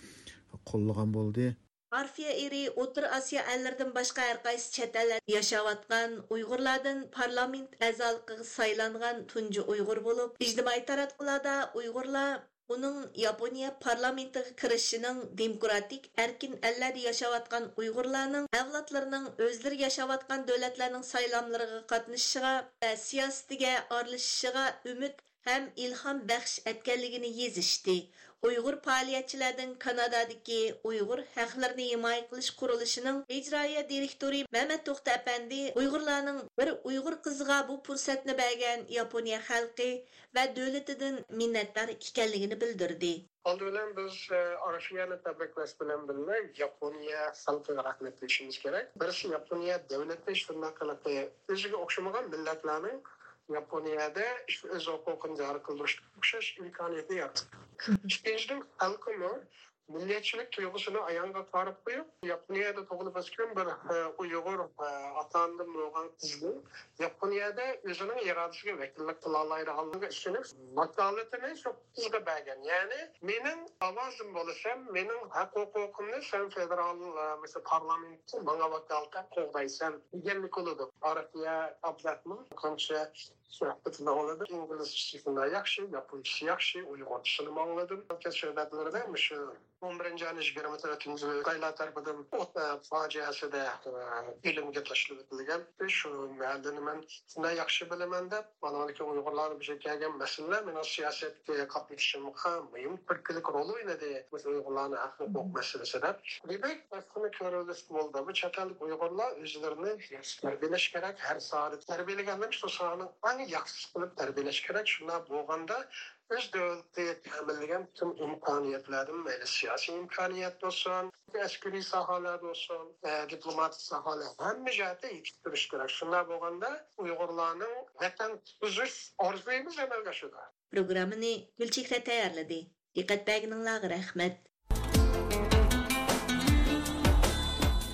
قوللىغان بولدى. ئارفىيە ئېرى ئوتتۇرا ئاسىيا ئەللىرىدىن باشقا ھەر قايسى چەت ئەللەردە ياشاۋاتقان ئۇيغۇرلاردىن پارلامېنت ئەزالىقىغا سايلانغان تۇنجى ئۇيغۇر بولۇپ، ئىجتىمائىي تاراتقۇلاردا ئۇيغۇرلار ئۇنىڭ ياپونىيە پارلامېنتىغا كىرىشىنىڭ دېموكراتىك ئەركىن ئەللەردە ياشاۋاتقان ئۇيغۇرلارنىڭ ئەۋلادلىرىنىڭ ئۆزلىرى ياشاۋاتقان دۆلەتلەرنىڭ سايلاملىرىغا قاتنىشىشىغا ۋە سىياسىتىگە ئارىلىشىشىغا ئۈمىد ھەم ئىلھام بەخش ئەتكەنلىكىنى يېزىشتى. ئۇيغۇر پائالىيەتچىلەردىن كانادادىكى ئۇيغۇر ھەقلىرىنى ھىمايە قىلىش قۇرۇلۇشىنىڭ ئىجرائىيە دىرېكتورى مەمەت توختى ئەپەندى ئۇيغۇرلارنىڭ بىر ئۇيغۇر قىزىغا بۇ پۇرسەتنى بەرگەن ياپونىيە خەلقى ۋە دۆلىتىدىن مىننەتدار ئىكەنلىكىنى بىلدۈردى. ئالدى بىلەن بىز، ئە، ئارفىيەنى تەبرىكلەش بىلەن بىللە، ياپونىيە خەلقىگە رەھمەت دېيىشىمىز كېرەك. بىرسى، ياپونىيە دۆلىتى شۇنداق قىلىپ ئۆزىگە ئوخشىمىغان مىللەتلەرنىڭ ياپونىيەدە ئۆز ھوقۇقىنى جارى قىلدۇرۇشقا ئوخشاش ئىمكانىيەتنى يارىتىدۇ. ئىككىنچىدىن، خەلقىمۇ مىللەتچىلىك تۇيغۇسىنى ئاياغىغا قارىپ قويۇپ، ياپونىيەدە تۇغۇلۇپ ئۆسكەن بىر، ئە، ئۇيغۇر، ئە، ئاتا-ئانىدىن بولغان قىزنىڭ ياپونىيەدە ئۆزىنىڭ ئىرادىسىگە ۋەكىللىك قىلالايدىغانلىقىغا ئىشىنىپ، ۋاكالىتىنى شۇ قىزغا بەرگەن. يەنى، مېنىڭ ئاۋازىم بولىسەن، مېنىڭ ھەق-ھوقۇقۇمنى سەن فېدېرال، ئە، مەسىلەن، پارلامېنتتا ماڭا ۋاكالىتەن قوغدايسەن دېگەنلىك بولىدۇ. ئارفىيە ئابلەتنىڭ قانچە سۆھبىتىنى ئاڭلىدىم. ئىنگلىزچىسى شۇنداق ياخشى، ياپونچىسى ياخشى، ئۇيغۇرچىسىنىمۇ ئاڭلىدىم. سۆھبەتلىرىدە مۇشۇ ئون بىرىنچى ئاينىڭ يىگىرمە تۆتىنچى خىتايلار تەرىپىدىن ئوت، ئە، پاجىئەسىدە، ئە، ئۆلۈمگە تاشلىۋېتىلگەن. شۇ مەھەللىنى مەن شۇنداق ياخشى بىلىمەن دەپ، مانا ئۇيغۇرلارنىڭ بۇ يەرگە كەلگەن مەسىلىلەر مېنىڭ سىياسەتكە قاتنىشىشىمغا مۇھىم تۈرتكىلىك رول ئوينىدى. مۇشۇ ئۇيغۇرلارنىڭ ھەق ھوقۇق مەسىلىسىدە. دېمەك، بۇنى كۆرۈۋېلىشقا بولىدۇ. بۇ چەت ئەللىك ئۇيغۇرلار ئۆزلىرىنى ياخشى تەربىيەلەش كېرەك. ھەر ساھەدە تەربىيەلىگەندىن شۇ ساھەنىڭ ئەڭ ياخشىسى قىلىپ تەربىيەلەش كېرەك. شۇنداق بولغاندا ئۆز دۆلىتى تەمىنلىگەن پۈتۈن ئىمكانىيەتلەردىن، مەيلى سىياسىي ئىمكانىيەت بولسۇن، ئەسكىرىي ساھەلەردە بولسۇن، ئە، دىپلوماتىك ساھەلەر، ھەممە جەھەتتە يېتىشتۈرۈش كېرەك. شۇنداق بولغاندا ئۇيغۇرلارنىڭ ۋەتەن تۇتقۇزۇش ئارزۇيىمىز ئەمەلگە ئاشىدۇ. پروگراممىنى گۈلچېھرە تەييارلىدى. دىققەت بەرگىنىڭلارغا رەھمەت.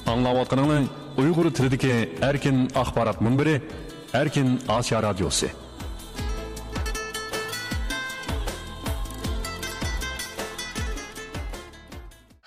ئاڭلاۋاتقىنىڭلار ئۇيغۇر تىلىدىكى ئەركىن ئاخبارات مۇنبىرى، ئەركىن ئاسىيا رادىيوسى.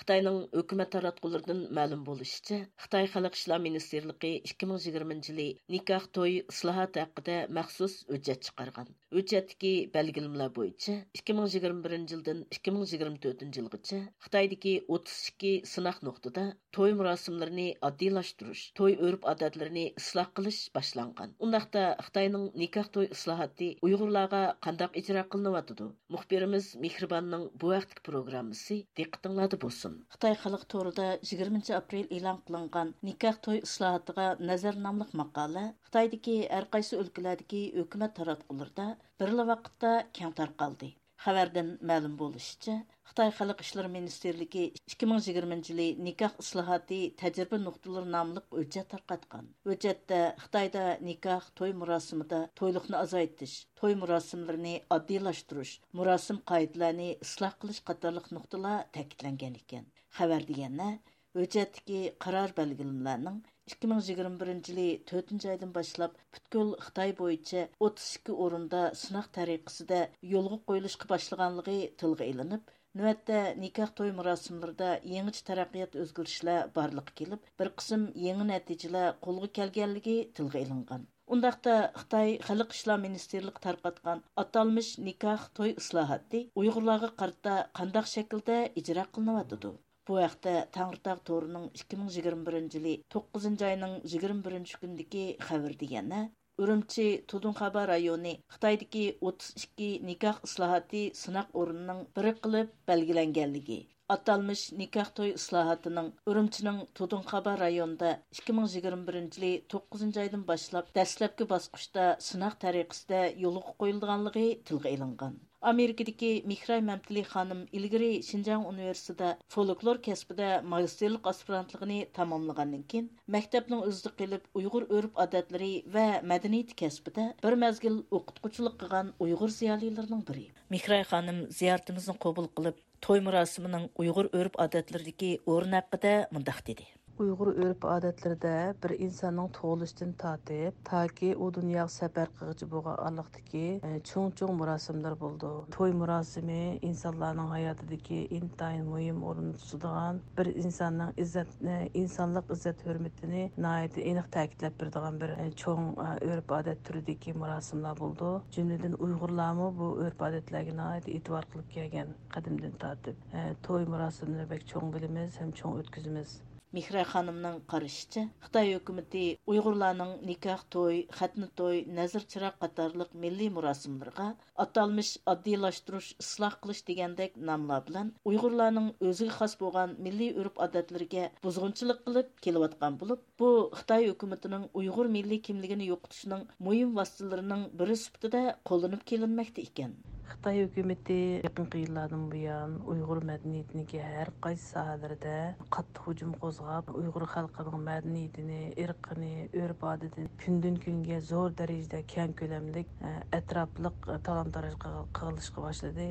خىتاينىڭ ھۆكۈمەت تاراتقۇلىرىدىن مەلۇم بولۇشىچە، خىتاي خەلق ئىشلار مىنىستىرلىقى ئىككى مىڭ يىگىرمىنچى يىلى نىكاھ توي ئىسلاھاتى ھەققىدە مەخسۇس ھۆججەت چىقارغان. ھۆججەتتىكى بەلگىلىمىلەر بويىچە، ئىككى مىڭ يىگىرمە بىرىنچى يىلدىن ئىككى مىڭ يىگىرمە تۆتىنچى يىلغىچە خىتايدىكى ئوتتۇز ئىككى سىناق نۇقتىدا توي مۇراسىملىرىنى ئاددىيلاشتۇرۇش، توي ئۆرپ-ئادەتلىرىنى ئىسلاھ قىلىش باشلانغان. ئۇنداقتا خىتاينىڭ نىكاھ توي ئىسلاھاتى ئۇيغۇرلارغا قانداق ئىجرا قىلىنىۋاتىدۇ؟ مۇخبىرىمىز مېھرىباننىڭ بۇ ھەقتىكى پروگراممىسى دىققىتىڭلاردا بولسۇن. خىتاي خەلق تورىدا يىگىرمىنچى ئاپرېل ئېلان قىلىنغان نىكاھ توي ئىسلاھاتىغا نەزەر ناملىق ماقالە خىتايدىكى ھەر قايسى ئۆلكىلەردىكى ھۆكۈمەت تاراتقۇلىرىدا بىرلا ۋاقىتتا كەڭ تارقالدى. خەۋەردىن مەلۇم بولۇشىچە، خىتاي خەلق ئىشلىرى مىنىستىرلىكى ئىككى مىڭ يىگىرمىنچى يىلى نىكاھ ئىسلاھاتى تەجرىبە نۇقتىلىرى ناملىق ھۆججەت تارقاتقان. ھۆججەتتە خىتايدا نىكاھ، توي مۇراسىمىدا تويلۇقنى ئازايتىش، توي مۇراسىملىرىنى ئاددىيلاشتۇرۇش، مۇراسىم قائىدىلەرنى ئىسلاھ قىلىش قاتارلىق نۇقتىلار تەكىتلەنگەن ئىكەن. خەۋەردە يەنە ھۆججەتتىكى قارار بەلگىلىمىلەرنىڭ ئىككى مىڭ يىگىرمە بىرىنچى يىلى تۆتىنچى ئايدىن باشلاپ پۈتكۈل خىتاي بويىچە ئوتتۇز ئىككى ئورۇندا سىناق تەرىقىسىدە يولغا قويۇلۇشقا باشلىغانلىقى تىلغا ئېلىنىپ، نۆۋەتتە نىكاھ توي مۇراسىملىرىدا يېڭىچە تەرەققىيات ئۆزگىرىشلەر بارلىققا كېلىپ، بىر قىسىم يېڭى نەتىجىلەر قولغا كەلگەنلىكى تىلغا ئېلىنغان. ئۇنداقتا خىتاي خەلق ئىشلار مىنىستىرلىقى تارقاتقان ئاتالمىش نىكاھ توي ئىسلاھاتى ئۇيغۇرلارغا قارىتا قانداق شەكىلدە ئىجرا قىلىنىۋاتىدۇ؟ بۇ ھەقتە تەڭرىتاغ تورىنىڭ ئىككى مىڭ يىگىرمە بىرىنچى يىلى توققۇزىنچى ئاينىڭ يىگىرمە بىرىنچى كۈنىدىكى خەۋىرىدە يەنە، ئۈرۈمچى تۇدۇڭخابا رايونى خىتايدىكى ئوتتۇز ئىككى نىكاھ ئىسلاھاتى سىناق ئورنىنىڭ بىرى قىلىپ بەلگىلەنگەنلىكى، ئاتالمىش نىكاھ توي ئىسلاھاتىنىڭ ئۈرۈمچىنىڭ تۇدۇڭخابا رايونىدا ئىككى مىڭ يىگىرمە بىرىنچى يىلى توققۇزىنچى ئايدىن باشلاپ دەسلەپكى باسقۇچتا سىناق تەرىقىسىدە يولغا قويۇلىدىغانلىقى تىلغا ئېلىنغان. ئامېرىكىدىكى مېھراي مەمتىلى خانىم ئىلگىرى شىنجاڭ ئۇنىۋېرسىتېتىدا فولكلور كەسپىدە ماگىستىرلىق ئاسپىرانتلىقىنى تاماملىغاندىن كېيىن، مەكتەپنىڭ ئۆزىدە قېلىپ ئۇيغۇر ئۆرپ-ئادەتلىرى ۋە مەدەنىيىتى كەسپىدە بىر مەزگىل ئوقۇتقۇچىلىق قىلغان ئۇيغۇر زىيالىيلىرىنىڭ بىرى. مېھراي خانىم زىيارىتىمىزنى قوبۇل قىلىپ، توي مۇراسىمىنىڭ ئۇيغۇر ئۆرپ-ئادەتلىرىدىكى ئورنى ھەققىدە مۇنداق دېدى. ئۇيغۇر ئۆرپ-ئادەتلىرىدە بىر ئىنساننىڭ تۇغۇلۇشىدىن تارتىپ، تاكى ئۇ دۇنياغا سەپەر قىلغۇچە بولغان ئارىلىقتىكى، ئە، چوڭ-چوڭ مۇراسىملار بولىدۇ. توي مۇراسىمى ئىنسانلارنىڭ ھاياتىدىكى ئىنتايىن مۇھىم ئورۇننى تۇتىدىغان، بىر ئىنساننىڭ ئىززەت، ئە، ئىنسانلىق ئىززەت-ھۆرمىتىنى ناھايىتى ئېنىق تەكىتلەپ بېرىدىغان بىر، ئە، چوڭ، ئە، ئۆرپ-ئادەت تۈرىدىكى مۇراسىملار بولىدۇ. جۈملىدىن ئۇيغۇرلارمۇ بۇ ئۆرپ-ئادەتلەرگە ناھايىتى ئېتىبار قىلىپ كەلگەن قەدىمدىن تارتىپ. ئە، توي مۇراسىملىرىنى بەك چوڭ بىلىمىز ھەم چوڭ ئۆتكۈزىمىز. مېھراي خانىمنىڭ قارىشىچە، خىتاي ھۆكۈمىتى ئۇيغۇرلارنىڭ نىكاھ توي، خەتنە توي، نەزىر چىراغ قاتارلىق مىللىي مۇراسىملىرىغا ئاتالمىش ئاددىيلاشتۇرۇش، ئىسلاھ قىلىش دېگەندەك ناملار بىلەن ئۇيغۇرلارنىڭ ئۆزىگە خاس بولغان مىللىي ئۆرپ-ئادەتلىرىگە بۇزغۇنچىلىق قىلىپ كېلىۋاتقان بولۇپ، بۇ خىتاي ھۆكۈمىتىنىڭ ئۇيغۇر مىللىي كىملىكىنى يوقىتىشنىڭ مۇھىم ۋاسىتىلىرىنىڭ بىرى سۈپىتىدە قوللىنىپ كېلىنمەكتە ئىكەن. خىتاي ھۆكۈمىتى يېقىنقى يىللاردىن بۇيان ئۇيغۇر مەدەنىيىتىنىڭكى ھەر قايسى ساھەلىرىدە قاتتىق ھۇجۇم قوزغاپ، ئۇيغۇر خەلقىنىڭ مەدەنىيىتىنى، ئىرقىنى، ئۆرپ-ئادىتىنى كۈندىن-كۈنگە زور دەرىجىدە كەڭ كۆلەملىك، ئەتراپلىق تالان-تاراج قىلىشقا باشلىدى.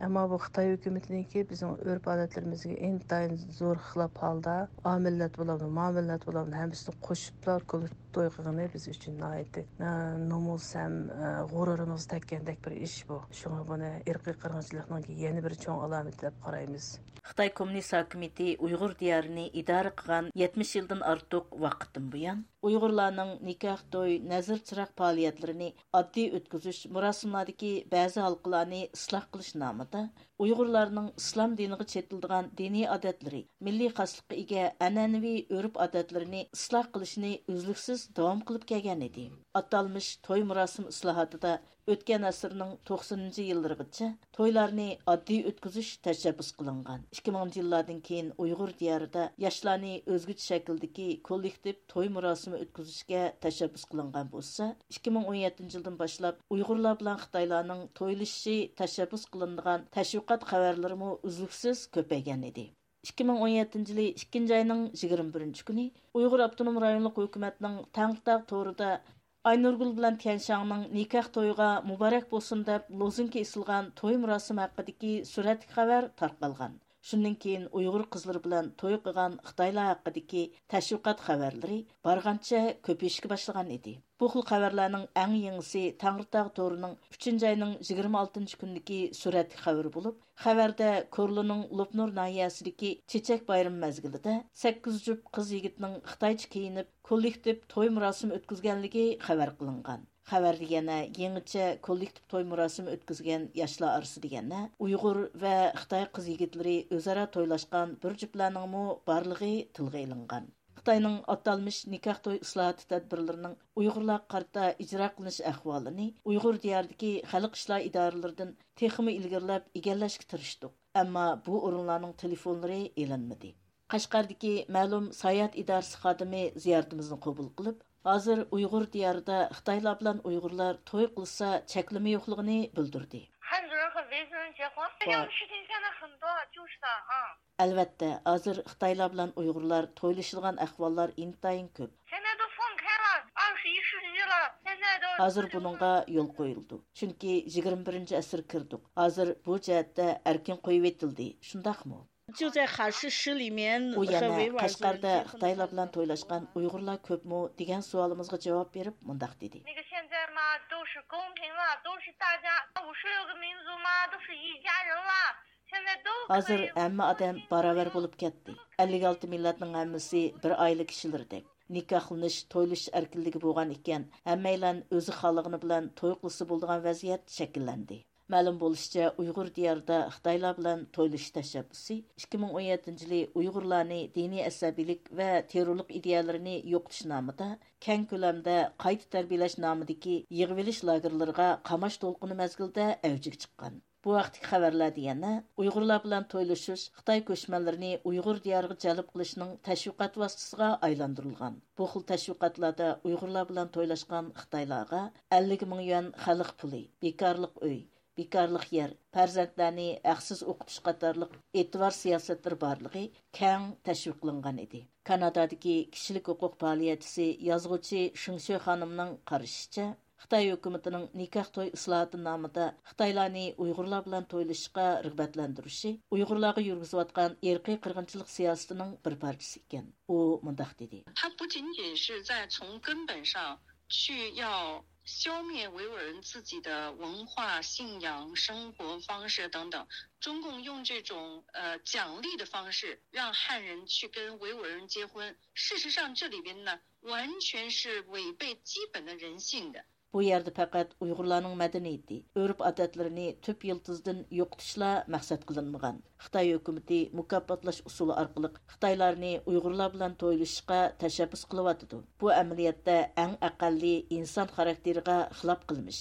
ئەمما بۇ خىتاي ھۆكۈمىتىنىڭكى بىزنىڭ ئۆرپ-ئادەتلىرىمىزگە ئىنتايىن زور خىلاپ ھالدا، ئا مىللەت بولامدۇ، ما مىللەت بولامدۇ، ھەممىسىنى قوشۇپلا توي قىلغىنى بىز ئۈچۈن ناھايىتى، ئە، نومۇس ھەم، ئە، غۇرۇرىمىزغا تەگكەندەك بىر ئىش بۇ. شۇڭا بۇنى ئىرقىي قىرغىنچىلىقنىڭكى يەنە بىر چوڭ ئالامىتى دەپ قارايمىز. خىتاي كوممۇنىست ھاكىمىيىتى ئۇيغۇر دىيارىنى ئىدارە قىلغان يەتمىش يىلدىن ئارتۇق ۋاقىتتىن بۇيان، ئۇيغۇرلارنىڭ نىكاھ توي، نەزىر چىراغ پائالىيەتلىرىنى ئاددىي ئۆتكۈزۈش، مۇراسىملاردىكى بەزى ھالقىلارنى ئىسلاھ قىلىش نامىدا، ئۇيغۇرلارنىڭ ئىسلام دىنىغا چېتىلىدىغان دىنىي ئادەتلىرى، مىللىي خاسلىققا ئىگە ئەنئەنىۋى ئۆرپ-ئادەتلىرىنى ئىسلاھ قىلىشنى ئۈزلۈكسىز داۋام قىلىپ كەلگەنىدى. ئاتالمىش توي مۇراسىم ئىسلاھاتىدا ئۆتكەن ئەسىرنىڭ توقسىنىنچى يىللىرىغىچە تويلارنى ئاددىي ئۆتكۈزۈش تەشەببۇس قىلىنغان. ئىككى مىڭىنچى يىللاردىن كېيىن ئۇيغۇر دىيارىدا ياشلارنى ئۆزگىچە شەكىلدىكى كوللېكتىپ توي مۇراسىمى ئۆتكۈزۈشكە تەشەببۇس قىلىنغان بولسا، ئىككى مىڭ ئون يەتتىنچى يىلدىن باشلاپ ئۇيغۇرلار بىلەن خىتايلارنىڭ تويلىشىشى تەشەببۇس قىلىنىدىغان تەشۋىقات خەۋەرلىرىمۇ ئۈزلۈكسىز كۆپەيگەن ئىدى. ئىككى مىڭ ئون يەتتىنچى يىلى ئىككىنچى ئاينىڭ يىگىرمە بىرىنچى كۈنى ئۇيغۇر ئاپتونوم رايونلۇق ھۆكۈمەتنىڭ تەڭرىتاغ تورىدا ئاينۇرگۈل بىلەن تيەنشاڭنىڭ نىكاھ تويىغا مۇبارەك بولسۇن دەپ لوزۇنكا ئېسىلغان توي مۇراسىمى ھەققىدىكى سۈرەتلىك خەۋەر تارقالغان. شۇندىن كېيىن ئۇيغۇر قىزلىرى بىلەن توي قىلغان خىتايلار ھەققىدىكى تەشۋىقات خەۋەرلىرى بارغانچە كۆپىيىشكە باشلىغان ئىدى. بۇ خىل خەۋەرلەرنىڭ ئەڭ يېڭىسى تەڭرىتاغ تورىنىڭ ئۈچىنچى ئاينىڭ يىگىرمە ئالتىنچى كۈنىدىكى سۈرەتلىك خەۋىرى بولۇپ، خەۋەردە كورلىنىڭ لوپنۇر ناھىيەسىدىكى چېچەك بايرىمى مەزگىلىدە سەككىز جۈپ قىز يىگىتنىڭ خىتايچە كىيىنىپ، كوللېكتىپ توي مۇراسىمى ئۆتكۈزگەنلىكى خەۋەر قىلىنغان. خەۋەردە يەنە يېڭىچە كوللېكتىپ توي مۇراسىمى ئۆتكۈزگەن ياشلار ئارىسىدا يەنە ئۇيغۇر ۋە خىتاي قىز يىگىتلىرى ئۆزئارا تويلاشقان بىر جۈپلەرنىڭمۇ بارلىقى تىلغا ئېلىنغان. خىتاينىڭ ئاتالمىش نىكاھ توي ئىسلاھاتى تەدبىرلىرىنىڭ ئۇيغۇرلارغا قارىتا ئىجرا قىلىنىش ئەھۋالىنى ئۇيغۇر دىيارىدىكى خەلق ئىشلار ئىدارىلىرىدىن تېخىمۇ ئىلگىرىلەپ ئىگىلەشكە تىرىشتۇق، ئەمما بۇ ئورۇنلارنىڭ تېلېفونلىرى ئېلىنمىدى. قەشقەردىكى مەلۇم ساياھەت ئىدارىسى خادىمى زىيارىتىمىزنى قوبۇل قىلىپ، ھازىر ئۇيغۇر دىيارىدا خىتايلار بىلەن ئۇيغۇرلار توي قىلسا چەكلىمە يوقلۇقىنى بىلدۈردى. 汉族人和维族人结婚，这样的事情现在很多，就是的啊。 ئەلۋەتتە، ھازىر خىتايلار بىلەن ئۇيغۇرلار تويلىشىدىغان ئەھۋاللار ئىنتايىن كۆپ. 现在都放开了，二十一世纪了，现在都 ھازىر بۇنىڭغا يول قويۇلىدۇ. چۈنكى يىگىرمە بىرىنچى ئەسىرگە كىردۇق. ھازىر بۇ جەھەتتە ئەركىن قويۇۋېتىلدى، شۇنداقمۇ؟ 就在哈市市里面 ئۇ يەنە قەشقەردە خىتايلار بىلەن تويلاشقان ئۇيغۇرلار كۆپمۇ دېگەن سوئالىمىزغا جاۋاب بېرىپ مۇنداق دېدى. 那个现在嘛，都是公平了，都是大家五十六个民族嘛，都是一家人了。 ھازىر ھەممە ئادەم باراۋەر بولۇپ كەتتى. ئەللىك ئالتە مىللەتنىڭ ھەممىسى بىر ئائىلە كىشىلىرىدەك. نىكاھلىنىش، تويلىشىش ئەركىنلىكى بولغان ئىكەن، ھەممەيلەن ئۆزى خالىغىنى بىلەن توي قىلسا بولىدىغان ۋەزىيەت شەكىللەندى. مەلۇم بولۇشىچە، ئۇيغۇر دىيارىدا خىتايلار بىلەن تويلىشىش تەشەببۇسى ئىككى مىڭ ئون يەتتىنچى يىلى ئۇيغۇرلارنى دىنىي ئەسەبىيلىك ۋە تېررورلۇق ئىدىيەلىرىنى يوقىتىش نامىدا كەڭ كۆلەمدە قايتا تەربىيەلەش نامىدىكى يىغىۋېلىش لاگېرلىرىغا قاماش دولقۇنى مەزگىلىدە ئەۋجىگە چىققان. بۇ ھەقتىكى خەۋەرلەردە يەنە ئۇيغۇرلار بىلەن تويلىشىش خىتاي كۆچمەنلىرىنى ئۇيغۇر دىيارىغا جەلپ قىلىشنىڭ تەشۋىقات ۋاسىتىسىغا ئايلاندۇرۇلغان. بۇ خىل تەشۋىقاتلاردا ئۇيغۇرلار بىلەن تويلاشقان خىتايلارغا ئەللىك مىڭ يۈەن خەلق پۇلى، بىكارلىق ئۆي، بىكارلىق يەر، پەرزەنتلەرنى ھەقسىز ئوقۇتۇش قاتارلىق ئېتىبار سىياسەتلىرى بارلىقى كەڭ تەشۋىقلانغان ئىدى. كانادادىكى كىشىلىك ھوقۇق پائالىيەتچىسى، يازغۇچى شېڭ شۆ خانىمنىڭ قارىشىچە، خىتاي ھۆكۈمىتىنىڭ نىكاھ توي ئىسلاھاتى نامىدا خىتايلارنى ئۇيغۇرلار بىلەن تويلىشىشقا رىغبەتلەندۈرۈشى ئۇيغۇرلارغا يۈرگۈزۈۋاتقان ئىرقىي قىرغىنچىلىق سىياسىتىنىڭ بىر پارچىسى ئىكەن. ئۇ مۇنداق دېدى. 它不仅仅是在从根本上去要消灭维吾尔人自己的文化、信仰、生活方式等等，中共用这种呃奖励的方式让汉人去跟维吾尔人结婚，事实上这里边呢完全是违背基本的人性的。 بۇ يەردە پەقەت ئۇيغۇرلارنىڭ مەدەنىيىتى، ئۆرپ-ئادەتلىرىنى تۈپ يىلتىزىدىن يوقىتىشلا مەقسەت قىلىنمىغان. خىتاي ھۆكۈمىتى مۇكاپاتلاش ئۇسۇلى ئارقىلىق خىتايلارنى ئۇيغۇرلار بىلەن تويلىشىشقا تەشەببۇس قىلىۋاتىدۇ. بۇ ئەمەلىيەتتە ئەڭ ئەقەللىي ئىنسان خاراكتېرىغا خىلاپ قىلمىش.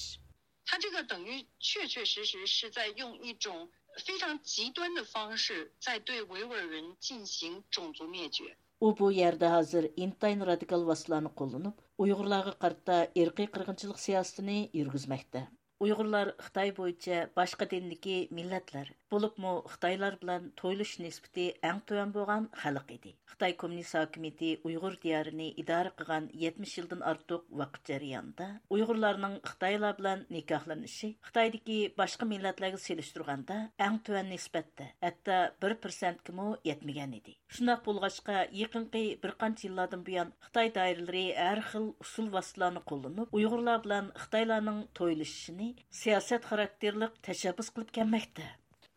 它这个等于确确实实是在用一种非常极端的方式在对维吾尔人进行种族灭绝。 ئۇ بۇ يەردە ھازىر ئىنتايىن رادىكال ۋاسىتىلارنى قوللىنىپ، ئۇيغۇرلارغا قارىتا ئىرقىي قىرغىنچىلىق سىياسىتىنى يۈرگۈزمەكتە. ئۇيغۇرلار خىتاي بويىچە باشقا دىندىكى مىللەتلەر، بولۇپمۇ خىتايلار بىلەن تويلىشىش نىسبىتى ئەڭ تۆۋەن بولغان خەلق ئىدى. خىتاي كوممۇنىست ھاكىمىيىتى ئۇيغۇر دىيارىنى ئىدارە قىلغان يەتمىش يىلدىن ئارتۇق ۋاقىت جەريانىدا ئۇيغۇرلارنىڭ خىتايلار بىلەن نىكاھلىنىشى خىتايدىكى باشقا مىللەتلەرگە سېلىشتۇرغاندا ئەڭ تۆۋەن نىسبەتتە، ھەتتا بىر پىرسەنتكىمۇ يەتمىگەن ئىدى. شۇنداق بولغاچقا، يېقىنقى بىر قانچە يىللاردىن بۇيان خىتاي دائىرىلىرى ھەر خىل ئۇسۇل ۋاسىتىلارنى قوللىنىپ، ئۇيغۇرلار بىلەن خىتايلارنىڭ تويلىشىشىنى سىياسەت خاراكتېرلىق تەشەببۇس قىلىپ كەلمەكتە.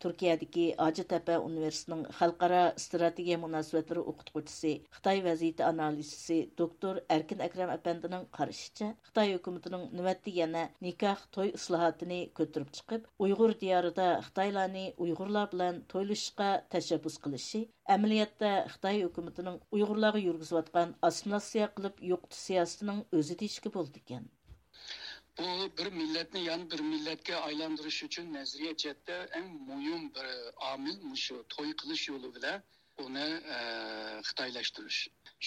تۈركىيەدىكى ھاجىتەپە ئۇنىۋېرسىتېتىنىڭ خەلقئارا ئىستراتېگىيە مۇناسىۋەتلىرى ئوقۇتقۇچىسى، خىتاي ۋەزىيىتى ئانالىزچىسى دوكتور ئەركىن ئەكرەم ئەپەندىنىڭ قارىشىچە، خىتاي ھۆكۈمىتىنىڭ نۆۋەتتە يەنە نىكاھ، توي ئىسلاھاتىنى كۆتۈرۈپ چىقىپ، ئۇيغۇر دىيارىدا خىتايلارنى ئۇيغۇرلار بىلەن تويلىشىشقا تەشەببۇس قىلىشى، ئەمەلىيەتتە خىتاي ھۆكۈمىتىنىڭ ئۇيغۇرلارغا يۈرگۈزۈۋاتقان ئاسسىمىلياتسىيە قىلىپ يوقىتىش سىياسىتىنىڭ ئۆزى دېيىشكە بولىدىكەن. بۇ بىر مىللەتنى يەنە بىر مىللەتكە ئايلاندۇرۇش ئۈچۈن نەزەرىيە جەھەتتە ئەڭ مۇھىم بىر ئامىل مۇشۇ توي قىلىش يولى بىلەن ئۇنى، ئە، خىتايلاشتۇرۇش.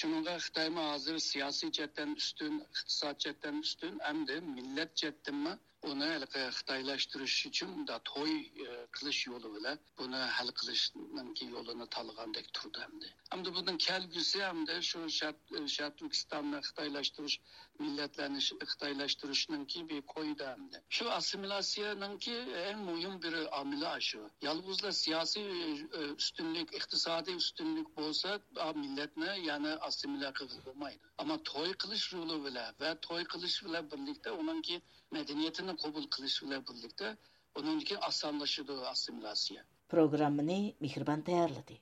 شۇنىڭغا خىتايمۇ ھازىر سىياسىي جەھەتتىن ئۈستۈن، ئىقتىساد جەھەتتىن ئۈستۈن، ئەمدى مىللەت جەھەتتىنمۇ ئۇنى ھېلىقى خىتايلاشتۇرۇش ئۈچۈن مۇنداق توي، ئە، قىلىش يولى بىلەن بۇنى ھەل قىلىشنىڭكى يولىنى تاللىغاندەك تۇرىدۇ ئەمدى. ئەمدى بۇنىڭ كەلگۈسى ئەمدى شۇ شەرق، شەرقىي تۈركىستاننى خىتايلاشتۇرۇش، مىللەتلەرنى ش-، خىتايلاشتۇرۇشنىڭكى بىر كويىدا ئەمدى. شۇ ئاسسىمىلياتسىيەنىڭكى ئەڭ مۇھىم بىر ئامىلى شۇ. يالغۇزلا سىياسىي، ئە، ئۈستۈنلۈك، ئىقتىسادىي ئۈستۈنلۈك بولسا، ئا، مىللەتنى يەنە ئاسسىمىلياتسىيە قىلغىلى بولمايدۇ. ئەمما توي قىلىش يولى بىلەن ۋە توي قىلىش بىلەن بىرلىكتە ئۇنىڭكى مەدەنىيىتىنى قوبۇل قىلىش بىلەن بىرلىكتە ئۇنىڭدىن كېيىن ئاسانلىشىدۇ ئاسسىمىلياتسىيە. پروگراممىنى مېھرىبان تەييارلىدى.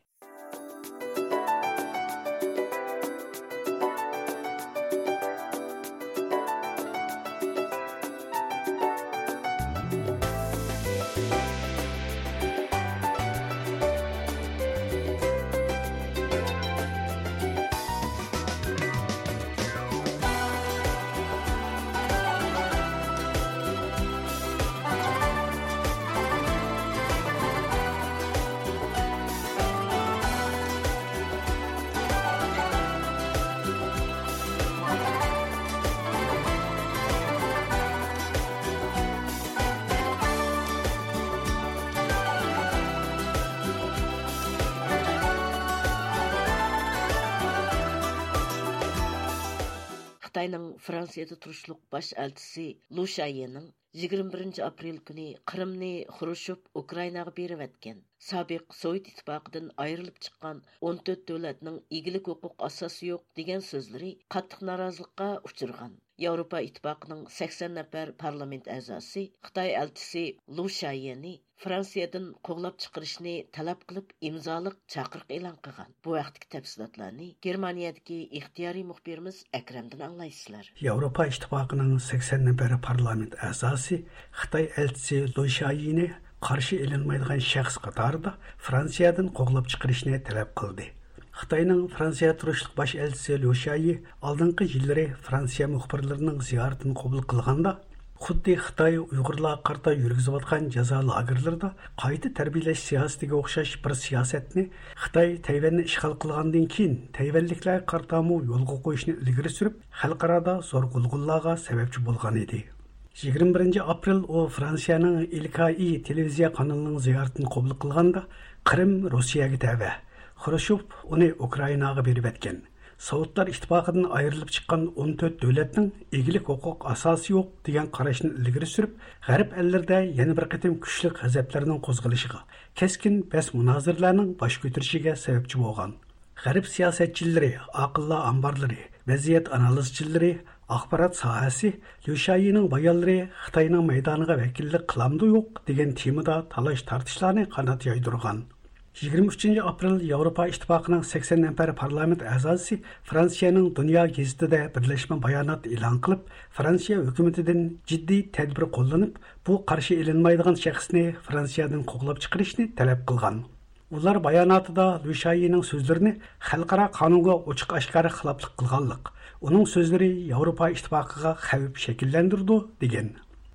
خىتاينىڭ فرانسىيەدە تۇرۇشلۇق باش ئەلچىسى لۇ شاييىنىڭ يىگىرمە بىرىنچى ئاپرېل كۈنى قىرىمنى خرۇشچوف ئۇكرائىناغا بېرىۋەتكەن، سابىق سوۋېت ئىتتىپاقىدىن ئايرىلىپ چىققان ئون تۆت دۆلەتنىڭ ئىگىلىك ھوقۇق ئاساسى يوق دېگەن سۆزلىرى قاتتىق نارازىلىققا ئۇچرىغان. ياۋروپا ئىتتىپاقىنىڭ سەكسەن نەپەر پارلامېنت ئەزاسى خىتاي ئەلچىسى لۇ شاييىنى فرانسىيەدىن قوغلاپ چىقىرىشنى تەلەپ قىلىپ ئىمزالىق چاقىرىق ئېلان قىلغان. بۇ ھەقتىكى تەپسىلاتلارنى گېرمانىيەدىكى ئىختىيارىي مۇخبىرىمىز ئەكرەمدىن ئاڭلايسىلەر. ياۋروپا ئىتتىپاقىنىڭ سەكسەن نەپەر پارلامېنت ئەزاسى خىتاي ئەلچىسى لۇ شاييىنى قارشى ئېلىنمايدىغان شەخس قاتارىدا فرانسىيەدىن قوغلاپ چىقىرىشنى تەلەپ قىلدى. خىتاينىڭ فرانسىيە تۇرۇشلۇق باش ئەلچىسى ليۇ شيايى ئالدىنقى يىللىرى فرانسىيە مۇخبىرلىرىنىڭ زىيارىتىنى قوبۇل قىلغاندا، خۇددى خىتاي ئۇيغۇرلارغا قارىتا يۈرگۈزۈۋاتقان جازا لاگېرلىرىدا قايتا تەربىيەلەش سىياسىتىگە ئوخشاش بىر سىياسەتنى خىتاي تەيۋەننى ئىشغال قىلغاندىن كېيىن تەيۋەنلىكلەرگە قارىتامۇ يولغا قويۇشنى ئىلگىرى سۈرۈپ، خەلقئارادا زور غۇلغۇلىلارغا سەۋەبچى بولغان ئىدى. يىگىرمە بىرىنچى ئاپرېل ئۇ فرانسىيەنىڭ ئىلكائى تېلېۋىزىيە قانىلىنىڭ زىيارىتىنى قوبۇل قىلغاندا، قىرىم روسىيەگە تەۋە، خرۇشچوف ئۇنى ئۇكرائىناغا بېرىۋەتكەن. سوۋېتلار ئىتتىپاقىدىن ئايرىلىپ چىققان ئون تۆت دۆلەتنىڭ ئىگىلىك ھوقۇق ئاساسى يوق دېگەن قاراشنى ئىلگىرى سۈرۈپ، غەرب ئەللىرىدە يەنە بىر قېتىم كۈچلۈك غەزەپلەرنىڭ قوزغىلىشىغا، كەسكىن بەس مۇنازىرىلەرنىڭ باش كۆتۈرۈشىگە سەۋەبچى بولغان. غەرب سىياسەتچىلىرى، ئاقىللار ئامبارلىرى، ۋەزىيەت ئانالىزچىلىرى، ئاخبارات ساھەسى، ليۇ شيايىنىڭ بايانلىرى خىتاينىڭ مەيدانىغا ۋەكىللىك قىلامدۇ يوق دېگەن تېمىدا تالاش تارتىشلارنى قانات يايدۇرغان. يىگىرمە ئۈچىنچى ئاپرېل ياۋروپا ئىتتىپاقىنىڭ سەكسەن نەپەر پارلامېنت ئەزاسى فرانسىيەنىڭ دۇنيا گېزىتىدە بىرلەشمە بايانات ئېلان قىلىپ، فرانسىيە ھۆكۈمىتىدىن جىددىي تەدبىر قوللىنىپ، بۇ قارشى ئېلىنمايدىغان شەخسنى فرانسىيەدىن قوغلاپ چىقىرىشنى تەلەپ قىلغان. ئۇلار باياناتىدا ليۇ شيايىنىڭ سۆزلىرىنى خەلقئارا قانۇنغا ئوچۇق ئاشكارا خىلاپلىق قىلغانلىق، ئۇنىڭ سۆزلىرى ياۋروپا ئىتتىپاقىغا خەۋپ شەكىللەندۈرىدۇ، دېگەن.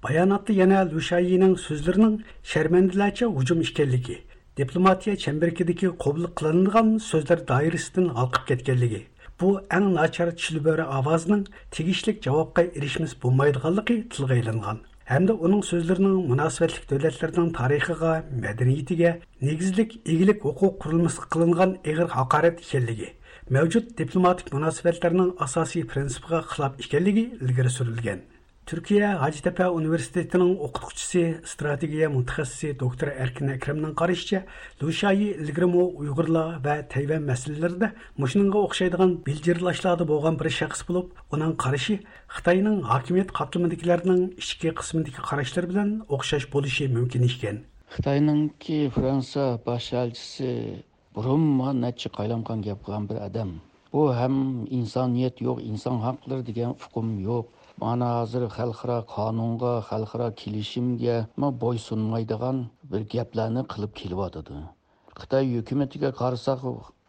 باياناتتا يەنە ليۇ شيايىنىڭ سۆزلىرىنىڭ شەرمەندىلەرچە ھۇجۇم ئىكەنلىكى، دىپلوماتىيە چەمبىرىكىدىكى قوبۇل قىلىنىدىغان سۆزلەر دائىرىسىدىن ھالقىپ كەتكەنلىكى، بۇ ئەڭ ناچار چىلبۆرە ئاۋازىنىڭ تېگىشلىك جاۋابقا ئېرىشمىسە بولمايدىغانلىقى تىلغا ئېلىنغان. ھەمدە ئۇنىڭ سۆزلىرىنىڭ مۇناسىۋەتلىك دۆلەتلەرنىڭ تارىخىغا، مەدەنىيىتىگە، نېگىزلىك ئىگىلىك ھوقۇق قۇرۇلمىسىغا قىلىنغان ئېغىر ھاقارەت ئىكەنلىكى، مەۋجۇت دىپلوماتىك مۇناسىۋەتلەرنىڭ ئاساسىي پىرىنسىپىغا خىلاپ ئىكەنلىكى ئىلگىرى سۈرۈلگەن. تۈركىيە ھاجىتەپە ئۇنىۋېرسىتېتىنىڭ ئوقۇتقۇچىسى، ئىستراتېگىيە مۇتەخەسسىسى دوكتور ئەركىن ئەكرەمنىڭ قارىشىچە، لۇ شايى ئىلگىرىمۇ ئۇيغۇرلار ۋە تەيۋەن مەسىلىلىرىدە مۇشۇنىڭغا ئوخشايدىغان بىلجىرلاشلاردا بولغان بىر شەخس بولۇپ، ئۇنىڭ قارىشى خىتاينىڭ ھاكىمىيەت قاتلىمىدىكىلەرنىڭ ئىچكى قىسمىدىكى قاراشلىرى بىلەن ئوخشاش بولۇشى مۇمكىن ئىكەن. خىتاينىڭكى فرانسىيە باش ئەلچىسى بۇرۇنمۇ نەچچە قايلامقان گەپ قىلغان بىر ئادەم. بۇ ھەم ئىنسانىيەت يوق، ئىنسان ھەقلىرى دېگەن ئۇقۇم يوق. مانا ھازىر خەلقئارا قانۇنغا، خەلقئارا كېلىشىمگە بويسۇنمايدىغان بىر گەپلەرنى قىلىپ كېلىۋاتىدۇ. خىتاي ھۆكۈمىتىگە قارىساق،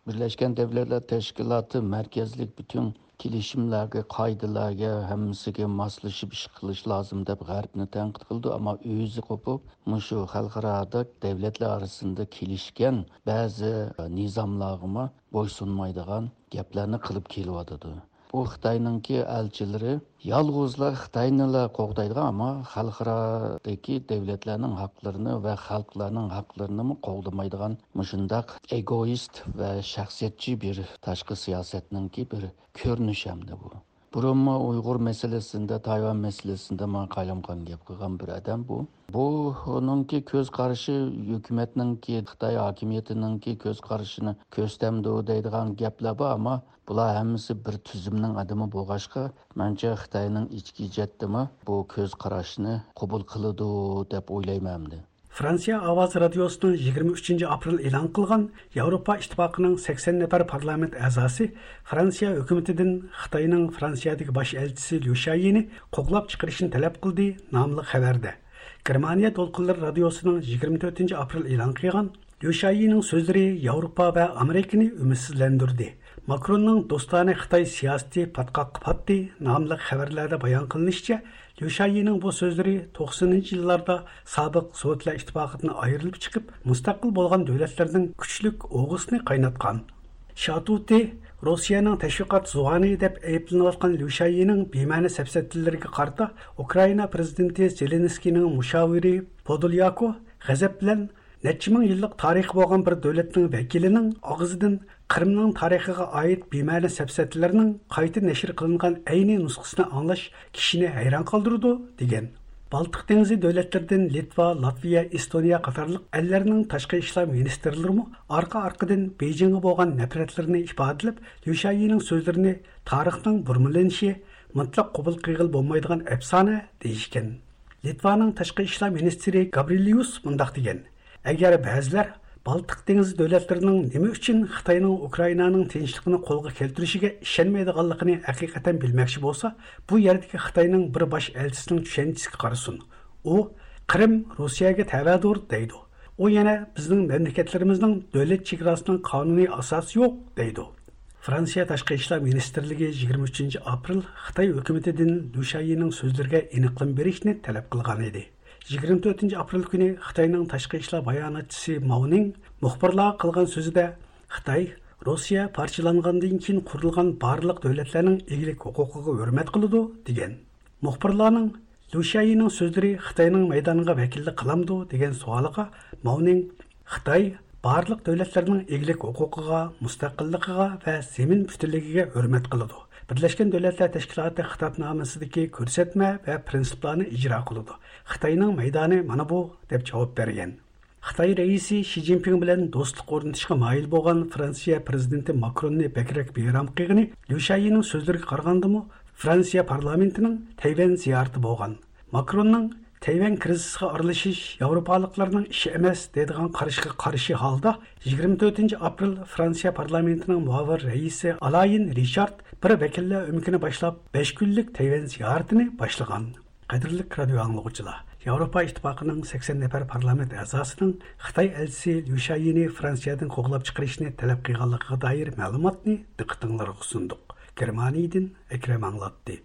بىرلەشكەن دەۋلەتلەر تەشكىلاتى مەركەزلىك پۈتۈن كېلىشىملەرگە، قائىدىلەرگە، ھەممىسىگە ماسلىشىپ ئىش قىلىش لازىم دەپ غەربنى تەنقىد قىلىدۇ، ئەمما ئۆزى قوپۇپ مۇشۇ خەلقئارادا دەۋلەتلەر ئارىسىدا كېلىشكەن بەزى نىزاملارغىمۇ بويسۇنمايدىغان گەپلەرنى قىلىپ كېلىۋاتىدۇ. بۇ خىتاينىڭكى ئەلچىلىرى يالغۇزلا خىتاينىلا قوغدايدىغان، ئەمما خەلقئارادىكى دەۋلەتلەرنىڭ ھەقلىرىنى ۋە خەلقلەرنىڭ ھەقلىرىنىمۇ قوغدىمايدىغان مۇشۇنداق ئېگوئىست ۋە شەخسىيەتچى بىر تاشقى سىياسەتنىڭكى بىر كۆرۈنۈشى ئەمدى بۇ. بۇرۇنمۇ ئۇيغۇر مەسىلىسىندە، تايۋان مەسىلىسىندە ماڭا قايلامقان گەپ قىلغان بىر ئادەم بۇ. بۇ ئۇنىڭكى كۆز قارىشى، ھۆكۈمەتنىڭكى، خىتاي ھاكىمىيىتىنىڭكى كۆز قارىشىنى كۆرسىتەمدۇ دەيدىغان گەپلەر بار، ئەمما بۇلار ھەممىسى بىر تۈزۈمنىڭ ئادىمى بولغاچقا، مەنچە خىتاينىڭ ئىچكى جەھەتتىمۇ بۇ كۆز قاراشنى قوبۇل قىلىدۇ دەپ ئويلايمەن ئەمدى. فرانسىيە ئاۋازى رادىيوسىنىڭ يىگىرمە ئۈچىنچى ئاپرېل ئېلان قىلغان ياۋروپا ئىتتىپاقىنىڭ سەكسەن نەپەر پارلامېنت ئەزاسى فرانسىيە ھۆكۈمىتىدىن خىتاينىڭ فرانسىيەدىكى باش ئەلچىسى ليۇ شايىنى قوغلاپ چىقىرىشنى تەلەپ قىلدى ناملىق خەۋەردە، گېرمانىيە دولقۇنلىرى رادىيوسىنىڭ يىگىرمە تۆتىنچى ئاپرېل ئېلان قىلغان ليۇ شايىنىڭ سۆزلىرى ياۋروپا ۋە ئامېرىكىنى ئۈمىدسىزلەندۈردى. ماكروننىڭ دوستانە خىتاي سىياسىتى پاتقاققا پاتتى ناملىق خەۋەرلەردە بايان قىلىنىشىچە، ليۇ شايىنىڭ بۇ سۆزلىرى توقسىنىنچى يىللاردا سابىق سوۋېتلار ئىتتىپاقىدىن ئايرىلىپ چىقىپ، مۇستەقىل بولغان دۆلەتلەرنىڭ كۈچلۈك ئوغىسىنى قايناتقان. شاتۇتى، روسىيەنىڭ تەشۋىقات زۇۋانى دەپ ئەيىبلىنىۋاتقان ليۇ شايىنىڭ بىمەنە سەپسەتىلىرىگە قارىتا، ئۇكرائىنا پىرېزىدېنتى زېلېنسكىينىڭ مۇشاۋىرى پودولياكو غەزەپ بىلەن نەچچە مىڭ يىللىق تارىخى بولغان بىر دۆلەتنىڭ ۋەكىلىنىڭ ئاغزىدىن قىرىمنىڭ تارىخىغا ئائىت بىمەنە سەپسەتىلەرنىڭ قايتا نەشر قىلىنغان ئەينى نۇسخىسىنى ئاڭلاش كىشىنى ھەيران قالدۇرىدۇ، دېگەن. بالتىق دېڭىزى دۆلەتلىرىدىن لىتۋا، لاتۋىيە، ئېستونىيە قاتارلىق ئەللەرنىڭ تاشقى ئىشلار مىنىستىرلىرىمۇ ئارقا-ئارقىدىن بېيجىڭغا بولغان نەپرەتلىرىنى ئىپادىلەپ، ليۇ شيايىنىڭ سۆزلىرىنى تارىخنىڭ بۇرمىلىنىشى، مۇتلەق قوبۇل قىلغىلى بولمايدىغان ئەپسانە دېيىشكەن. لىتۋانىڭ تاشقى ئىشلار مىنىستىرى گابرىليۇس مۇنداق دېگەن: ئەگەر بەزىلەر بالتىق دېڭىزى دۆلەتلىرىنىڭ نېمە ئۈچۈن خىتاينىڭ ئۇكرائىنانىڭ تىنچلىقىنى قولغا كەلتۈرۈشىگە ئىشەنمەيدىغانلىقىنى ھەقىقەتەن بىلمەكچى بولسا، بۇ يەردىكى خىتاينىڭ بىر باش ئەلچىسىنىڭ چۈشەنچىسىگە قارىسۇن. ئۇ، «قىرىم روسىيەگە تەۋەدۇر» دەيدۇ. ئۇ يەنە، «بىزنىڭ مەملىكەتلىرىمىزنىڭ دۆلەت چېگراسىنىڭ قانۇنىي ئاساسى يوق» دەيدۇ. فرانسىيە تاشقى ئىشلار مىنىستىرلىكى يىگىرمە ئۈچىنچى ئاپرېل خىتاي ھۆكۈمىتىدىن ليۇ شيايىنىڭ سۆزلىرىگە ئېنىقلىما بېرىشنى تەلەپ قىلغان ئىدى. يىگىرمە تۆتىنچى ئاپرېل كۈنى خىتاينىڭ تاشقى ئىشلار باياناتچىسى ماۋنىڭ مۇخبىرلارغا قىلغان سۆزىدە، خىتاي روسىيە پارچىلانغاندىن كېيىن قۇرۇلغان بارلىق دۆلەتلەرنىڭ ئىگىلىك ھوقۇقىغا ھۆرمەت قىلىدۇ، دېگەن. مۇخبىرلارنىڭ ليۇ شيايىنىڭ سۆزلىرى خىتاينىڭ مەيدانىغا ۋەكىللىك قىلامدۇ دېگەن سوئالىغا ماۋنىڭ، خىتاي بارلىق دۆلەتلەرنىڭ ئىگىلىك ھوقۇقىغا، مۇستەقىللىقىغا ۋە زېمىن پۈتۈنلۈكىگە ھۆرمەت قىلىدۇ. بىرلەشكەن دۆلەتلەر تەشكىلاتى خىتابنامىسىدىكى كۆرسەتمە ۋە پىرىنسىپلارنى ئىجرا قىلىدۇ. خىتاينىڭ مەيدانى مانا بۇ، دەپ جاۋاب بەرگەن. خىتاي رەئىسى شى جىنپىڭ بىلەن دوستلۇق ئورنىتىشقا مايىل بولغان فرانسىيە پىرېزىدېنتى ماكروننى بەكرەك بىئارام قىلغىنى ليۇ شيايىنىڭ سۆزلىرىگە قارىغاندىمۇ، فرانسىيە پارلامېنتىنىڭ تەيۋەن زىيارىتى بولغان. ماكروننىڭ تەيۋەن كىرىزىسىغا ئارىلىشىش ياۋروپالىقلارنىڭ ئىشى ئەمەس دەيدىغان قارىشىغا قارشى ھالدا، يىگىرمە تۆتىنچى ئاپرېل فرانسىيە پارلامېنتىنىڭ مۇئاۋىن رەئىسى ئالايىن رىچارد بىر ۋەكىللەر ئۆمىكىنى باشلاپ، بەش كۈنلۈك تەيۋەن زىيارىتىنى باشلىغان. قەدىرلىك رادىئو ئاڭلىغۇچىلار، ياۋروپا ئىتتىپاقىنىڭ سەكسەن نەپەر پارلامېنت ئەزاسىنىڭ خىتاي ئەلچىسى ليۇ شيايىنى فرانسىيەدىن قوغلاپ چىقىرىشنى تەلەپ قىلغانلىقىغا دائىر مەلۇماتنى دىققىتىڭلارغا سۇندۇق. گېرمانىيىدىن ئەكرەم ئاڭلاتتى.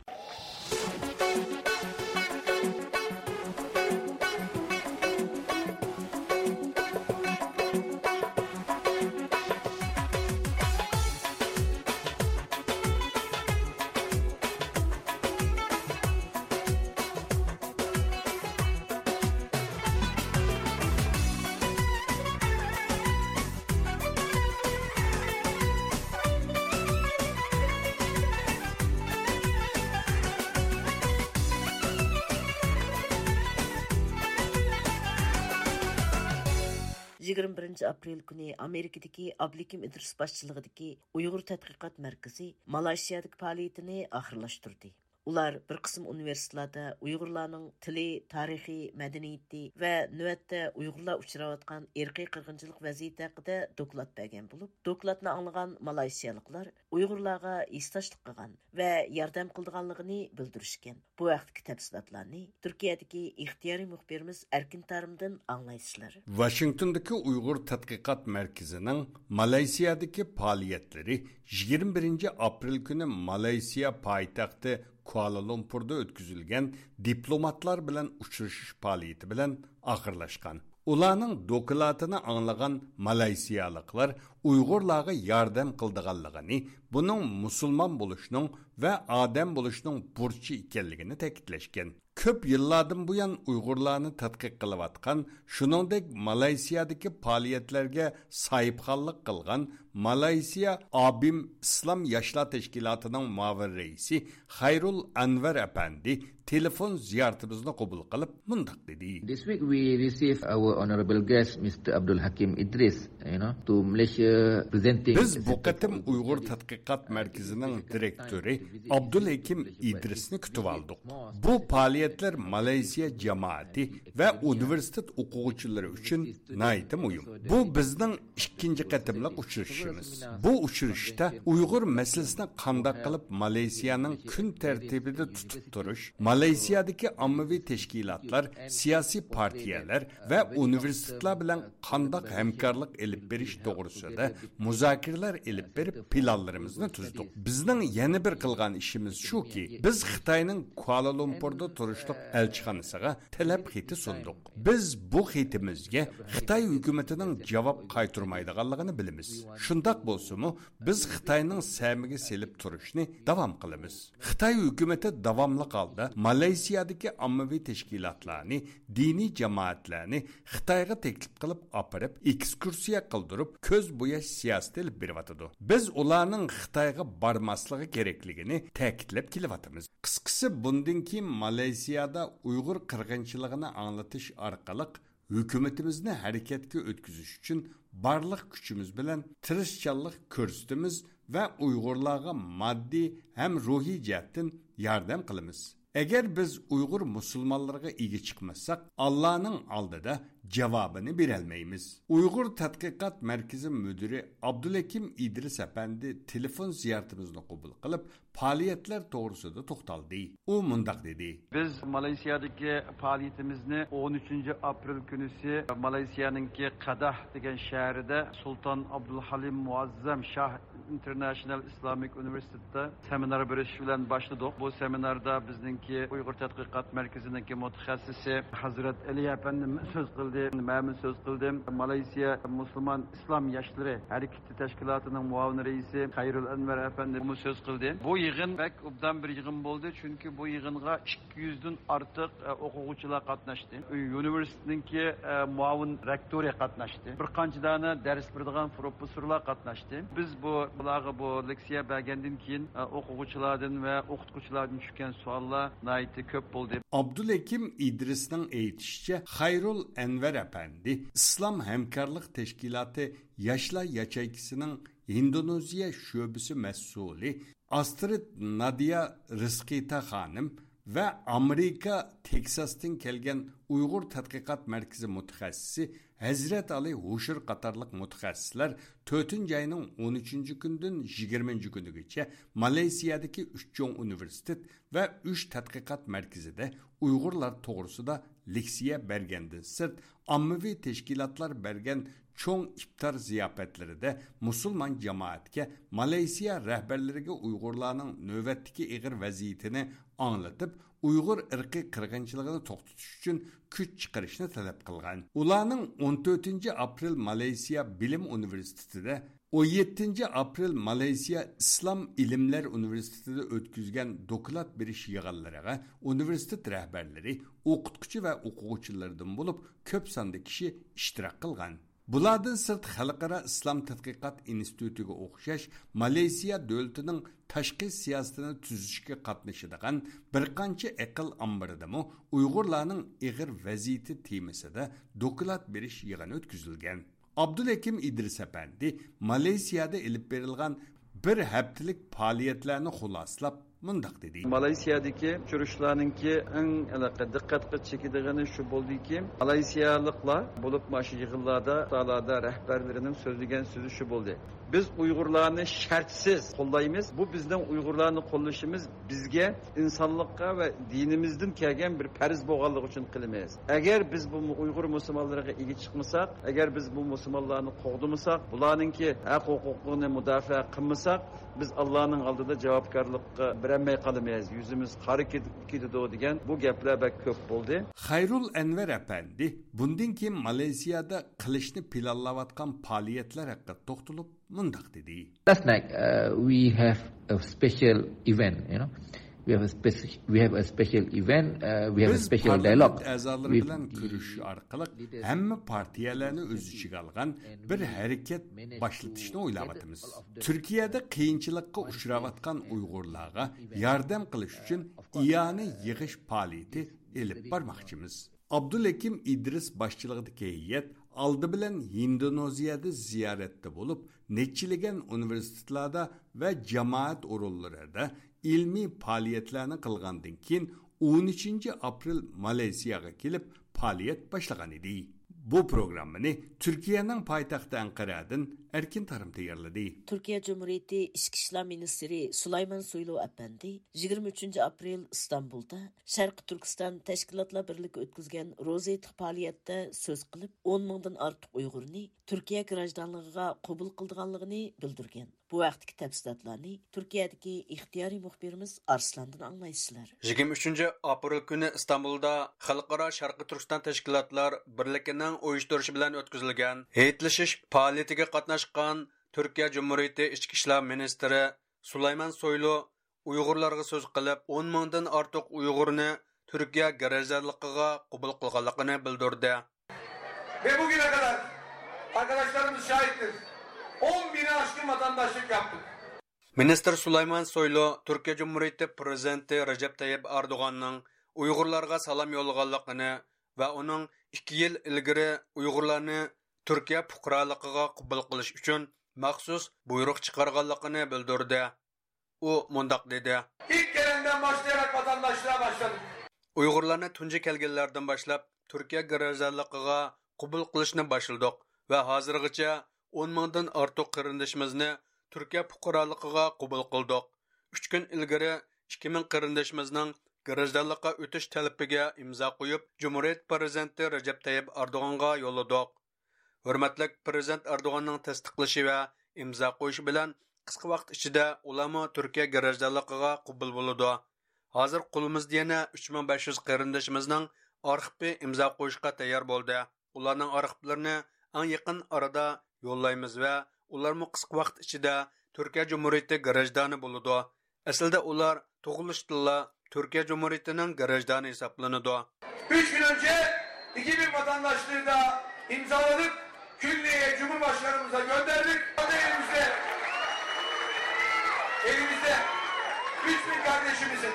يىگىرمە بىرىنچى ئاپرېل كۈنى ئامېرىكىدىكى ئابلىكىم ئىدرىس باشچىلىقىدىكى ئۇيغۇر تەتقىقات مەركىزى مالايشىيادىكى پائالىيىتىنى ئاخىرلاشتۇردى. ئۇلار بىر قىسىم ئۇنىۋېرسىتېتلاردا ئۇيغۇرلارنىڭ تىلى، تارىخى، مەدەنىيىتى ۋە نۆۋەتتە ئۇيغۇرلار ئۇچراۋاتقان ئىرقىي قىرغىنچىلىق ۋەزىيىتى ھەققىدە دوكلات بەرگەن بولۇپ، دوكلاتنى ئاڭلىغان مالايشىيالىقلار ئۇيغۇرلارغا ھېسداشلىق قىلغان ۋە ياردەم قىلىدىغانلىقىنى بىلدۈرۈشكەن. بۇ ھەقتىكى تەپسىلاتلارنى تۈركىيەدىكى ئىختىيارىي مۇخبىرىمىز ئەركىن تارىمدىن ئاڭلايسىلەر. ۋاشىنگتوندىكى ئۇيغۇر تەتقىقات مەركىزىنىڭ مالايسىيادىكى پائالىيەتلىرى يىگىرمە بىرىنچى ئاپرېل كۈنى مالايسىيا پايتەختى كۇئالالۇمپۇردا ئۆتكۈزۈلگەن دىپلوماتلار بىلەن ئۇچرىشىش پائالىيىتى بىلەن ئاخىرلاشقان. ئۇلارنىڭ دوكلاتىنى ئاڭلىغان مالايسىيالىقلار ئۇيغۇرلارغا ياردەم قىلىدىغانلىقىنى، بۇنىڭ مۇسۇلمان بولۇشنىڭ ۋە ئادەم بولۇشنىڭ بۇرچى ئىكەنلىكىنى تەكىتلەشكەن. كۆپ يىللاردىن بۇيان ئۇيغۇرلارنى تەتقىق قىلىۋاتقان، شۇنىڭدەك مالايسىيادىكى پائالىيەتلەرگە ساھىبخانلىق قىلغان مالايسىيا ئابىم ئىسلام ياشلار تەشكىلاتىنىڭ مۇئاۋىن رەئىسى خەيرۇل ئەنۋەر ئەپەندى تېلېفون زىيارىتىمىزنى قوبۇل قىلىپ مۇنداق دېدى. This week we received our honorable guest, Mister Abdul Hakim Idris, you know, to Malaysia presenting بىز بۇ قېتىم ئۇيغۇر تەتقىقات مەركىزىنىڭ دىرېكتورى ئابدۇلھېكىم ئىدرىسنى كۈتۈۋالدۇق. بۇ پائالىيەتلەر مالايسىيا جامائىتى ۋە ئۇنىۋېرسىتېت ئوقۇغۇچىلىرى ئۈچۈن ناھايىتى مۇھىم. بۇ بىزنىڭ ئىككىنچى قېتىملىق ئۇچرىشىشىمىز. بۇ ئۇچرىشىشتا ئۇيغۇر مەسىلىسىنى قانداق قىلىپ مالايسىيانىڭ كۈن تەرتىپىدە تۇتۇپ تۇرۇش، مالايسىيادىكى ئاممىۋى تەشكىلاتلار، سىياسىي پارتىيەلەر ۋە ئۇنىۋېرسىتېتلار بىلەن قانداق ھەمكارلىق ئېلىپ بېرىش توغرىسىدا مۇزاكىرىلەر ئېلىپ بېرىپ، پىلانلىرىمىزنى تۈزدۇق. بىزنىڭ يەنە بىر قىلغان ئىشىمىز شۇكى، بىز خىتاينىڭ كۇئالالۇمپۇردا تۇر تۇرۇشلۇق ئەلچىخانىسىغا تەلەپ خېتى سۇندۇق. بىز بۇ خېتىمىزگە خىتاي ھۆكۈمىتىنىڭ جاۋاب قايتۇرمايدىغانلىقىنى بىلىمىز. شۇنداق بولسىمۇ، بىز خىتاينىڭ سەمىگە سېلىپ تۇرۇشنى داۋام قىلىمىز. خىتاي ھۆكۈمىتى داۋاملىق ھالدا مالايسىيادىكى ئاممىۋى تەشكىلاتلارنى، دىنىي جامائەتلەرنى خىتايغا تەكلىپ قىلىپ ئاپىرىپ، ئېكسكۇرسىيە قىلدۇرۇپ، كۆز بوياش سىياسىتى ئېلىپ بېرىۋاتىدۇ. بىز ئۇلارنىڭ خىتايغا بارماسلىقى كېرەكلىكىنى تەكىتلەپ كېلىۋاتىمىز. قىسقىسى، بۇندىن كېيىن مالايسىيادا ئۇيغۇر قىرغىنچىلىقىنى ئاڭلىتىش ئارقىلىق ھۆكۈمىتىمىزنى ھەرىكەتكە ئۆتكۈزۈش ئۈچۈن بارلىق كۈچىمىز بىلەن تىرىشچانلىق كۆرسىتىمىز ۋە ئۇيغۇرلارغا ماددىي ھەم روھىي جەھەتتىن ياردەم قىلىمىز. ئەگەر بىز ئۇيغۇر مۇسۇلمانلىرىغا ئىگە چىقمىساق، ئاللانىڭ ئالدىدا جاۋابىنى بېرەلمەيمىز. ئۇيغۇر تەتقىقات مەركىزى مۇدىرى ئابدۇلھەكىم ئىدرىس ئەپەندى تېلېفون زىيارىتىمىزنى قوبۇل قىلىپ، پائالىيەتلەر توغرىسىدا توختالدى. ئۇ مۇنداق دېدى. بىز مالايسىيادىكى پائالىيىتىمىزنى ئون ئۈچىنچى ئاپرېل كۈنىسى مالايسىيانىڭكى قەداھ دېگەن شەھىرىدە سۇلتان ئابدۇلھەلىم مۇئەززەم شاھ ئىنتېرناشنال ئىسلامىك ئۇنىۋېرسىتېتتا سېمىنار بېرىش بىلەن باشلىدۇق. بۇ سېمىناردا بىزنىڭكى ئۇيغۇر تەتقىقات مەركىزىنىڭكى مۇتەخەسسىسى ھەزرەت ئەلى ئەپەندىمىز سۆز قىلدى، مەنمۇ سۆز قىلدىم. مالايسىيا مۇسۇلمان ئىسلام ياشلىرى ھەرىكىتى تەشكىلاتىنىڭ مۇئاۋىن رەئىسى خەيرۇل ئەنۋەر ئەپەندىمۇ سۆز قىلدى. بۇ يىغىن بەك ئوبدان بىر يىغىن بولدى، چۈنكى بۇ يىغىنغا ئىككى يۈزدىن ئارتۇق، ئە، ئوقۇغۇچىلار قاتناشتى. ئۇنىۋېرسىتېتنىڭكى، ئە، مۇئاۋىن رېكتورى قاتناشتى. بىر قانچە دانە دەرس بېرىدىغان پروفېسسورلار قاتناشتى. بىز بۇ، بۇلارغا بۇ لېكسىيە بەرگەندىن كېيىن، ئە، ئوقۇغۇچىلاردىن ۋە ئوقۇتقۇچىلاردىن چۈشكەن سوئاللار ناھايىتى كۆپ بولدى. ئابدۇلھەكىم ئىدرىسنىڭ ئېيتىشىچە، خەيرۇل ئەنۋەر ئەپەندى ئىسلام ھەمكارلىق تەشكىلاتى ياشلار ياچېيكىسىنىڭ ھىندونېزىيە شۆبىسى مەسئۇلى ئاسترىد نادىيا رىزقىتا خانىم ۋە ئامېرىكا تېكساستىن كەلگەن ئۇيغۇر تەتقىقات مەركىزى مۇتەخەسسىسى ھەزرەت ئالى ھوشۇر قاتارلىق مۇتەخەسسىسلەر تۆتىنچى ئاينىڭ ئون ئۈچىنچى كۈنىدىن يىگىرمىنچى كۈنىگىچە مالايسىيادىكى ئۈچ چوڭ ئۇنىۋېرسىتېت ۋە ئۈچ تەتقىقات مەركىزىدە ئۇيغۇرلار توغرىسىدا لېكسىيە بەرگەندىن سىرت، ئاممىۋى تەشكىلاتلار بەرگەن چوڭ ئىپتار زىياپەتلىرىدە مۇسۇلمان جامائەتكە، مالايسىيا رەھبەرلىرىگە ئۇيغۇرلارنىڭ نۆۋەتتىكى ئېغىر ۋەزىيىتىنى ئاڭلىتىپ، ئۇيغۇر ئىرقىي قىرغىنچىلىقىنى توختىتىش ئۈچۈن كۈچ چىقىرىشنى تەلەپ قىلغان. ئۇلارنىڭ ئون تۆتىنچى ئاپرېل مالايسىيا بىلىم ئۇنىۋېرسىتېتىدا، ئون يەتتىنچى ئاپرېل مالايسىيا ئىسلام ئىلىملەر ئۇنىۋېرسىتېتىدا ئۆتكۈزگەن دوكلات بېرىش يىغىنلىرىغا ئۇنىۋېرسىتېت رەھبەرلىرى، ئوقۇتقۇچى ۋە ئوقۇغۇچىلاردىن بولۇپ كۆپ ساندا كىشى ئىشتىراك قىلغان. بۇلاردىن سىرت، خەلقئارا ئىسلام تەتقىقات ئىنستىتۇتىغا ئوخشاش، مالايسىيا دۆلىتىنىڭ تاشقى سىياسىتىنى تۈزۈشكە قاتنىشىدىغان بىر قانچە ئەقىل ئامبىرىدىمۇ ئۇيغۇرلارنىڭ ئېغىر ۋەزىيىتى تېمىسىدا دوكلات بېرىش يىغىنى ئۆتكۈزۈلگەن. ئابدۇلھەكىم ئىدرىس ئەپەندى مالايسىيادا ئېلىپ بېرىلغان بىر ھەپتىلىك پائالىيەتلەرنى خۇلاسىلاپ مۇنداق دېدى. مالايسىيادىكى ئۇچرىشىشلارنىڭكى ئەڭ ھېلىقى دىققەتكە چېكىدىغىنى شۇ بولدىكى، مالايسىيالىقلار بولۇپمۇ ئاشۇ يىغىنلاردا، ساھەلەردە رەھبەرلىرىنىڭ سۆزلىگەن سۆزى شۇ بولدى. بىز ئۇيغۇرلارنى شەرتسىز قوللايمىز. بۇ بىزنىڭ ئۇيغۇرلارنى قوللىشىمىز بىزگە ئىنسانلىققا ۋە دىنىمىزدىن كەلگەن بىر پەرز بولغانلىقى ئۈچۈن قىلىمىز. ئەگەر بىز بۇ ئۇيغۇر مۇسۇلمانلىرىغا ئىگە چىقمىساق، ئەگەر بىز بۇ مۇسۇلمانلارنى قوغدىمىساق، بۇلارنىڭكى ھەق ھوقۇقىنى مۇداپىئە قىلمىساق، بىز ئاللانىڭ ئالدىدا جاۋابكارلىققا بېرەلمەي قالىمىز، يۈزىمىز قارا كېتىدۇ دېگەن بۇ گەپلەر بەك كۆپ بولدى. خەيرۇل ئەنۋەر ئەپەندى بۇندىن كېيىن مالايسىيادا قىلىشنى پىلانلاۋاتقان پائالىيەتلەر ھەققىدە توختىلىپ مۇنداق دېدى. Last night, uh, we have a special event, you know. We have a speci-, we have a special event, uh, we have a بىز special پارلامېنت dialogue ئەزالىرى with بىلەن the كۆرۈشۈش ئارقىلىق leaders ھەممە پارتىيەلەرنى ئۆز ئىچىگە ئالغان بىر ھەرىكەت باشلىتىشنى ئويلاۋاتىمىز. تۈركىيەدە قىيىنچىلىققا ئۇچراۋاتقان ئۇيغۇرلارغا ياردەم قىلىش ئۈچۈن ئىئانە يىغىش پائالىيىتى ئېلىپ بارماقچىمىز. ئابدۇلھەكىم ئىدرىس باشچىلىقىدىكى ھەيئەت ئالدى بىلەن ھىندونېزىيەدە زىيارەتتە بولۇپ، نەچچىلىگەن ئۇنىۋېرسىتېتلاردا ۋە جامائەت ئورۇنلىرىدا ئىلمىي پائالىيەتلەرنى قىلغاندىن كېيىن، ئون ئۈچىنچى ئاپرېل مالايسىياغا كېلىپ پائالىيەت باشلىغان ئىدى. بۇ پروگراممىنى تۈركىيەنىڭ پايتەختى ئەنقەرەدىن ئەركىن تارىم تەييارلىدى. تۈركىيە جۇمھۇرىيىتى ئىچكى ئىشلار مىنىستىرى سۇلايمان سويلۇ ئەپەندى يىگىرمە ئۈچىنچى ئاپرېل ئىستانبۇلدا شەرقىي تۈركىستان تەشكىلاتلار بىرلىكى ئۆتكۈزگەن روزا ھېيتلىق پائالىيەتتە سۆز قىلىپ، ئون مىڭدىن ئارتۇق ئۇيغۇرنى تۈركىيە گراژدانلىقىغا قوبۇل قىلىدىغانلىقىنى بىلدۈرگەن. بۇ ھەقتىكى تەپسىلاتلارنى تۈركىيەدىكى ئىختىيارىي مۇخبىرىمىز ئارسلاندىن ئاڭلايسىلەر. يىگىرمە ئۈچىنچى ئاپرېل كۈنى ئىستانبۇلدا خەلقئارا شەرقىي تۈركىستان تەشكىلاتلار بىرلىكىنىڭ ئۇيۇشتۇرۇشى بىلەن ئۆتكۈزۈلگەن ھېيتلىشىش پائالىيىتىگە قاتناشقان تۈركىيە جۇمھۇرىيىتى ئىچكى ئىشلار مىنىستىرى سۇلايمان سويلۇ ئۇيغۇرلارغا سۆز قىلىپ، ئون مىڭدىن ئارتۇق ئۇيغۇرنى تۈركىيە گراژدانلىقىغا قوبۇل قىلغانلىقىنى بىلدۈردى. Ve bugüne kadar, arkadaşlarımız şahittir, on bini aşkın vatandaşlık yaptık. مىنىستىر سۇلايمان سويلۇ تۈركىيە جۇمھۇرىيىتى پىرېزىدېنتى رەجەپ تەييىپ ئەردوغاننىڭ ئۇيغۇرلارغا سالام يوللىغانلىقىنى ۋە ئۇنىڭ ئىككى يىل ئىلگىرى ئۇيغۇرلارنى تۈركىيە پۇقرالىقىغا قوبۇل قىلىش ئۈچۈن مەخسۇس بۇيرۇق چىقارغانلىقىنى بىلدۈردى. ئۇ مۇنداق دېدى. İlk gelenden başlayarak vatandaşlığa başladık. ئۇيغۇرلارنى تۇنجى كەلگەنلەردىن باشلاپ تۈركىيە گراژدانلىقىغا قوبۇل قىلىشنى باشلىدۇق ۋە ھازىرغىچە ئون مىڭدىن ئارتۇق قېرىندىشىمىزنى تۈركىيە پۇقرالىقىغا قوبۇل قىلدۇق. ئۈچ كۈن ئىلگىرى ئىككى مىڭ قېرىندىشىمىزنىڭ گراژدانلىققا ئۆتۈش تەلىپىگە ئىمزا قويۇپ، جۇمھۇرىيەت پىرېزىدېنتى رەجەپ تەييىپ ئەردوغانغا يوللىدۇق. ھۆرمەتلىك پىرېزىدېنت ئەردوغاننىڭ تەستىقلىشى ۋە ئىمزا قويۇشى بىلەن قىسقا ۋاقىت ئىچىدە ئۇلارمۇ تۈركىيە گراژدانلىقىغا قوبۇل بولىدۇ. ھازىر قولىمىزدا يەنە ئۈچ مىڭ بەش يۈز قېرىندىشىمىزنىڭ ئارخىپى ئىمزا قويۇشقا تەييار بولدى. ئۇلارنىڭ ئارخىپلىرىنى ئەڭ يېقىن ئارىدا يوللايمىز ۋە ئۇلارمۇ قىسقا ۋاقىت ئىچىدە تۈركىيە جۇمھۇرىيىتى گراژدانى بولىدۇ. ئەسلىدە ئۇلار تۇغۇلۇشتىنلا تۈركىيە جۇمھۇرىيىتىنىڭ گراژدانى ھېسابلىنىدۇ. Üç gün önce iki bin vatandaşlığı da imzaladık. Külliye'ye, Cumhurbaşkanımıza gönderdik. Şu anda elimizde, elimizde üç bin kardeşimizin,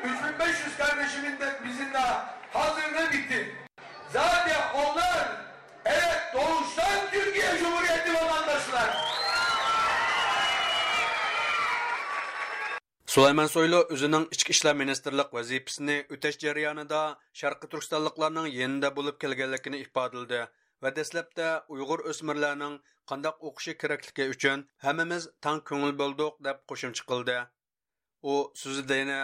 üç bin beş yüz kardeşimizin de bizim daha hazırlığı bitti. Zaten onlar, evet, doğuştan Türkiye Cumhuriyeti vatandaşlar. سۇلايمان سويلۇ ئۆزىنىڭ ئىچكى ئىشلار مىنىستىرلىق ۋەزىپىسىنى ئۆتەش جەريانىدا شەرقىي تۈركىستانلىقلارنىڭ يېنىدا بولۇپ كەلگەنلىكىنى ئىپادىلىدى ۋە دەسلەپتە ئۇيغۇر ئۆسمۈرلەرنىڭ قانداق ئوقۇشى كېرەكلىكى ئۈچۈن ھەممىمىز تەڭ كۆڭۈل بۆلدۇق، دەپ قوشۇمچە قىلدى. ئۇ سۆزىدە يەنە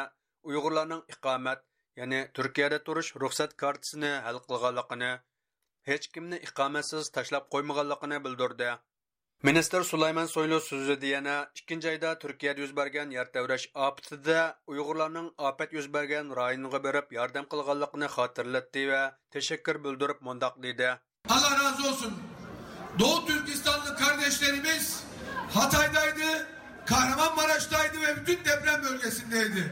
ئۇيغۇرلارنىڭ ئىقامەت، يەنى تۈركىيەدە تۇرۇش رۇخسەت كارتىسىنى ھەل قىلغانلىقىنى، ھېچكىمنى ئىقامەتسىز تاشلاپ قويمىغانلىقىنى بىلدۈردى. مىنىستىر سۇلايمان سويلۇ سۆزىدە يەنە ئىككىنچى ئايدا تۈركىيەدە يۈز بەرگەن يەر تەۋرەش ئاپىتىدە ئۇيغۇرلارنىڭ ئاپەت يۈز بەرگەن رايونغا بېرىپ ياردەم قىلغانلىقىنى خاتىرىلەتتى ۋە تەشەككۈر بىلدۈرۈپ مۇنداق دېدى. Allah razı olsun. Doğu Türkistanlı kardeşlerimiz Hatay'daydı, Kahramanmaraş'taydı ve bütün deprem bölgesindeydi.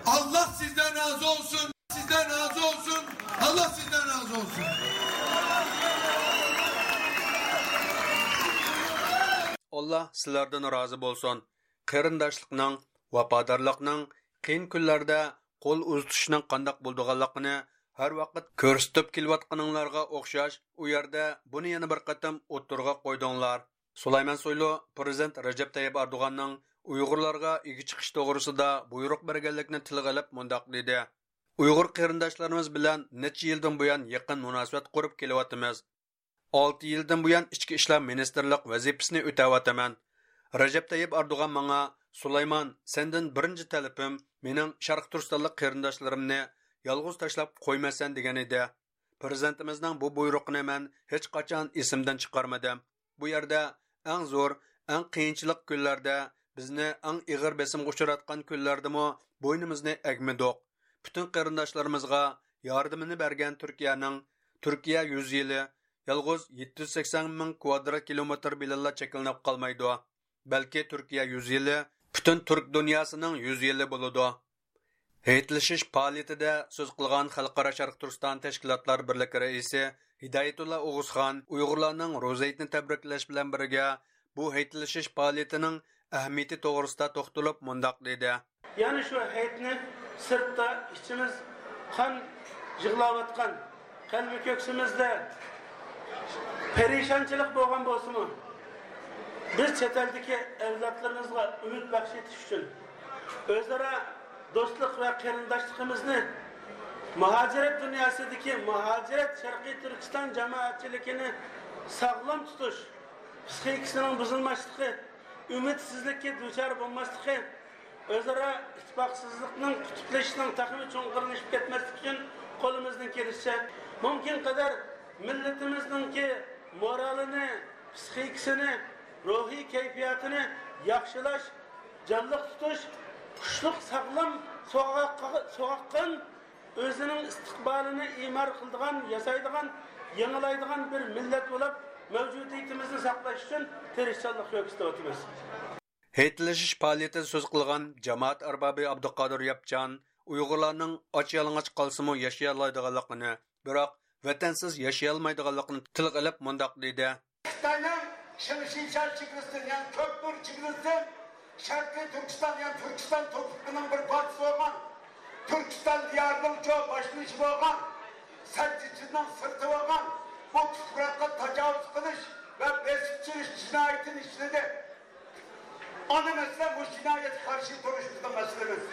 Allah sizden razı olsun. Sizden razı olsun. Allah sizden razı olsun. ئاللا سىلەردىن رازى بولسۇن. قېرىنداشلىقنىڭ، ۋاپادارلىقنىڭ، قىيىن كۈنلەردە قول ئۇزىتىشنىڭ قانداق بولىدىغانلىقىنى ھەر ۋاقىت كۆرسىتىپ كېلىۋاتقىنىڭلارغا ئوخشاش، ئۇ يەردە بۇنى يەنە بىر قېتىم ئوتتۇرىغا قويدۇڭلار. سۇلايمان سويلۇ پىرېزىدېنت رەجەپ تەييىپ ئەردوغاننىڭ ئۇيغۇرلارغا ئىگە چىقىش توغرىسىدا بۇيرۇق بەرگەنلىكىنى تىلغا ئېلىپ مۇنداق دېدى. ئۇيغۇر قېرىنداشلىرىمىز بىلەن نەچچە يىلدىن بۇيان يېقىن مۇناسىۋەت قۇرۇپ كېلىۋاتىمىز. ئالتە يىلدىن بۇيان ئىچكى ئىشلار مىنىستىرلىق ۋەزىپىسىنى ئۆتەۋاتىمەن. رەجەپ تەييىپ ئەردوغان ماڭا، سۇلايمان، سەندىن بىرىنچى تەلىپىم مېنىڭ شەرقىي تۈركىستانلىق قېرىنداشلىرىمنى يالغۇز تاشلاپ قويماسسەن دېگەن ئىدى. پىرېزىدېنتىمىزنىڭ بۇ بۇيرۇقىنى مەن ھېچقاچان ئېسىمدىن چىقارمىدىم. بۇ يەردە ئەڭ زور، ئەڭ قىيىنچىلىق كۈنلەردە، بىزنى ئەڭ ئېغىر بېسىمغا ئۇچراتقان كۈنلەردىمۇ بوينىمىزنى ئەگمىدۇق. پۈتۈن قېرىنداشلىرىمىزغا ياردىمىنى بەرگەن تۈركىيەنىڭ تۈركىيە يۈز يىلى يالغۇز يەتتە يۈز سەكسەن مىڭ كىۋادرات كىلومېتىر بىلەنلا چەكلىنىپ قالمايدۇ. بەلكى تۈركىيە يۈز يىلى پۈتۈن تۈرك دۇنياسىنىڭ يۈز يىلى بولىدۇ. ھېيتلىشىش پائالىيىتىدە سۆز قىلغان خەلقئارا شەرقىي تۈركىستان تەشكىلاتلار بىرلىكى رەئىسى ھىدايەتۇللا ئوغۇزخان ئۇيغۇرلارنىڭ روزا ھېيتنى تەبرىكلەش بىلەن بىرگە، بۇ ھېيتلىشىش پائالىيىتىنىڭ ئەھمىيىتى توغرىسىدا توختىلىپ مۇنداق دېدى. يەنى شۇ ھېيتنى سىرتتا ئىچىمىز قان يىغلاۋاتقان، قەلبى كۆكسىمىزدە پەرىشانچىلىق بولغان بولسىمۇ، بىز چەت ئەلدىكى ئەۋلادلىرىمىزغا ئۈمىد بەخش ئېتىش ئۈچۈن، ئۆزئارا دوستلۇق ۋە قېرىنداشلىقىمىزنى، مۇھاجىرەت دۇنياسىدىكى مۇھاجىرەت شەرقىي تۈركىستان جامائەتچىلىكىنى ساغلام تۇتۇش، پىسخىكىسىنىڭ بۇزۇلماسلىقى، ئۈمىدسىزلىككە دۇچار بولماسلىقى، ئۆزئارا ئىتتىپاقسىزلىقنىڭ قۇتۇپلىشىشىنىڭ تېخىمۇ چوڭقۇرلىشىپ كەتمەسلىكى ئۈچۈن قولىمىزدىن كېلىشىچە، مۇمكىن قەدەر مىللىتىمىزنىڭكى مورالىنى، پىسخىكىسىنى، روھىي كەيپىياتىنى ياخشىلاش، جانلىق تۇتۇش، كۈچلۈك، ساغلام، سوغۇق-، سوغۇققان، ئۆزىنىڭ ئىستىقبالىنى ئىمار قىلىدىغان، ياسايدىغان، يېڭىلايدىغان بىر مىللەت بولۇپ، مەۋجۇدىيىتىمىزنى ساقلاش ئۈچۈن تىرىشچانلىق كۆرسىتىۋاتىمىز. ھېيتلىشىش پائالىيىتىدە سۆز قىلغان جامائەت ئاربابى ئابدۇقادىر ياپچان ئۇيغۇرلارنىڭ ئاچ يالىڭاچ قالسىمۇ ياشىيالايدىغانلىقىنى، بىراق ۋەتەنسىز ياشىيالمايدىغانلىقىنى تىلغا ئېلىپ مۇنداق دېدى. خىتاينىڭ شىڭشىشيا چېگرىسىدىن، يەنى كۆكتۈر چېگرىسىدىن شەرقىي تۈركىستان، يەنى تۈركىستان توپرىقىنىڭ بىر پارچىسى بولغان، تۈركىستان دىيارىنىڭ چوڭ باشلىنىشى بولغان، سەددىچىنىڭ سىرتى بولغان بۇ تۇپراققا تاجاۋۇز قىلىش ۋە بېسىپ چۈشۈرۈش جىنايىتىنى ئىشلىدى. ئانا مەسىلە مۇشۇ جىنايەتكە قارشى تۇرۇش بىزنىڭ مەسىلىمىز.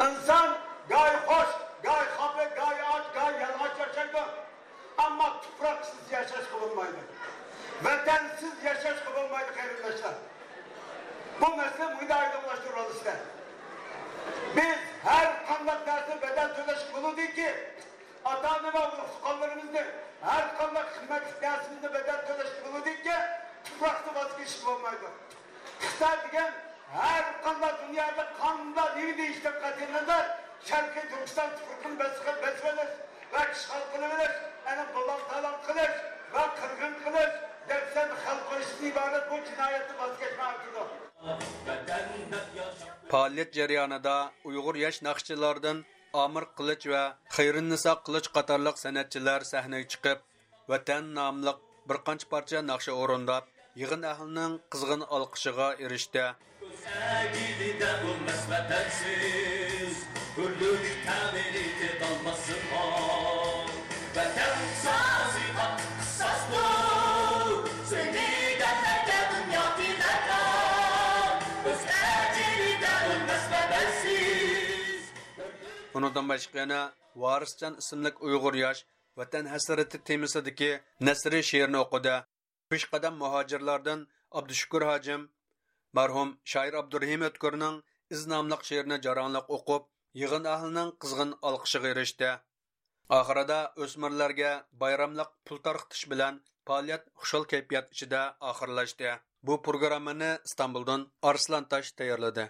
ئىنسان گاھى خوش، گاھى خاپا، گاھى ئاچ، گاھى يالىڭاچ ياشايدۇ. ئەمما تۇپراقسىز ياشاشقا بولمايدۇ. ۋەتەنسىز ياشاشقا بولمايدۇ، قېرىنداشلار. بۇ مەسىلە مۇنداق ئايدىڭلاشتۇرۇۋالىسىلەر. بىز ھەر قانداق نەرسە بەدەل تۆلەشكە بولىدۇكى، ئاتا-ئانا ۋە ئۇرۇق-تۇغقانلىرىمىزنى، ھەر قانداق قىممەتلىك نەرسىمىزنى بەدەل تۆلەشكە بولىدىكى، تۇپراقنى ۋاز كېچىشكە بولمايدۇ. خىتاي دېگەن ھەر قانداق دۇنيادا قانداق نېمە دېيىشتىن قەتئىينەزەر، شەرقىي تۈركىستان تۇپرىقىنى بېسىپ، بېسىۋېلىش ۋە ئىشغال قىلىۋېلىش، ئەنە بۇلاڭ-تالاڭ قىلىش ۋە قىرغىن قىلىش، دەپسەندە خەلق قويۇشتىن ئىبارەت بۇ جىنايەتنى ۋاز كەچمەي ئارتىدۇ. پائالىيەت جەريانىدا ئۇيغۇر ياش ناخشىچىلاردىن ئامىر قىلىچ ۋە خەيرىننىسا قىلىچ قاتارلىق سەنئەتچىلەر سەھنىگە چىقىپ، ۋەتەن ناملىق بىر قانچە پارچە ناخشا ئورۇنداپ، يىغىن ئەھلىنىڭ قىزغىن ئالقىشىغا ئېرىشتى. ئۆز ئەگىرىدە ئۆلمەس ۋەتەنسىز، ھۆرلۈك تەمىنى تېتىلماسلىققا. ۋەتەن سازى قاتتىق قىساستۇر، سۆيمىگەنلەرگە دۇنيا تىلەكدار. ئۆز ئەگىرىدە ئۆلمەس ۋەتەنسىز. ئۇنىڭدىن باشقا يەنە ۋارىسجان ئىسىملىك ئۇيغۇر ياش ۋەتەن ھەسرىتى تېمىسىدىكى نەسرىي شېئىرنى ئوقۇدى. پېشقەدەم مۇھاجىرلاردىن ئابدۇشۈكۈر ھاجىم مەرھۇم شائىر ئابدۇرېھىم ئۆتكۈرنىڭ ئىز ناملىق شېئىرىنى جاراڭلىق ئوقۇپ، يىغىن ئەھلىنىڭ قىزغىن ئالقىشىغا ئېرىشتى. ئاخىرىدا ئۆسمۈرلەرگە بايراملىق پۇل تارقىتىش بىلەن پائالىيەت خۇشال كەيپىيات ئىچىدە ئاخىرلاشتى. بۇ پروگراممىنى ئىستانبۇلدىن ئارسلان تاش تەييارلىدى.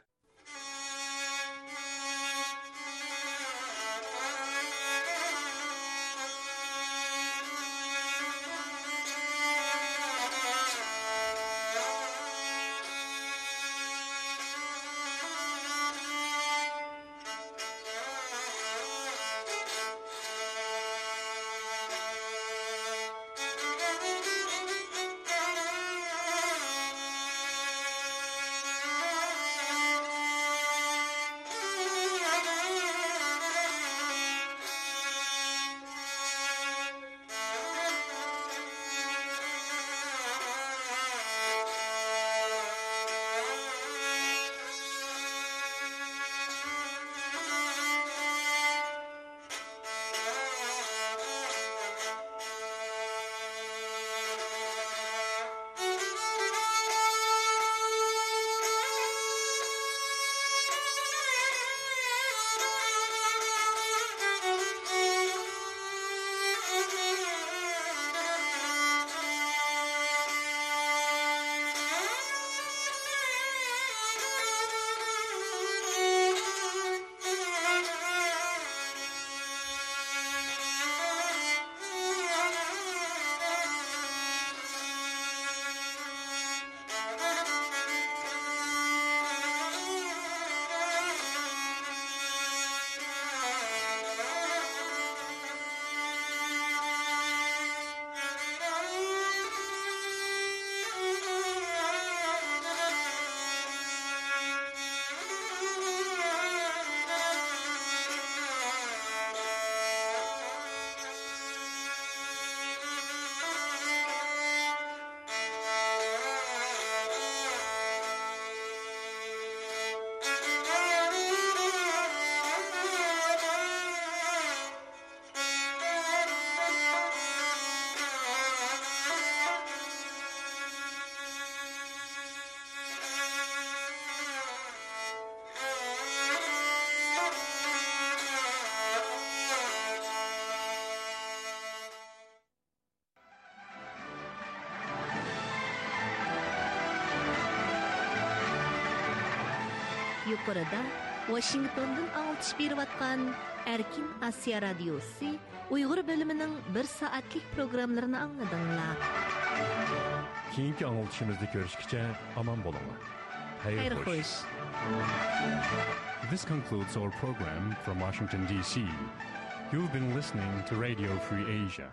يۇقىرىدا ۋاشىنگتوندىن ئاڭلىتىش بېرىۋاتقان ئەركىن ئاسىيا رادىيوسى ئۇيغۇر بۆلۈمىنىڭ بىر سائەتلىك پروگراممىلىرىنى ئاڭلىدىڭلار. كېيىنكى ئاڭلىتىشىمىزدا كۆرۈشكىچە ئامان بولۇڭلار. خەير خوش. This concludes our program from Washington, D C. You've been listening to Radio Free Asia.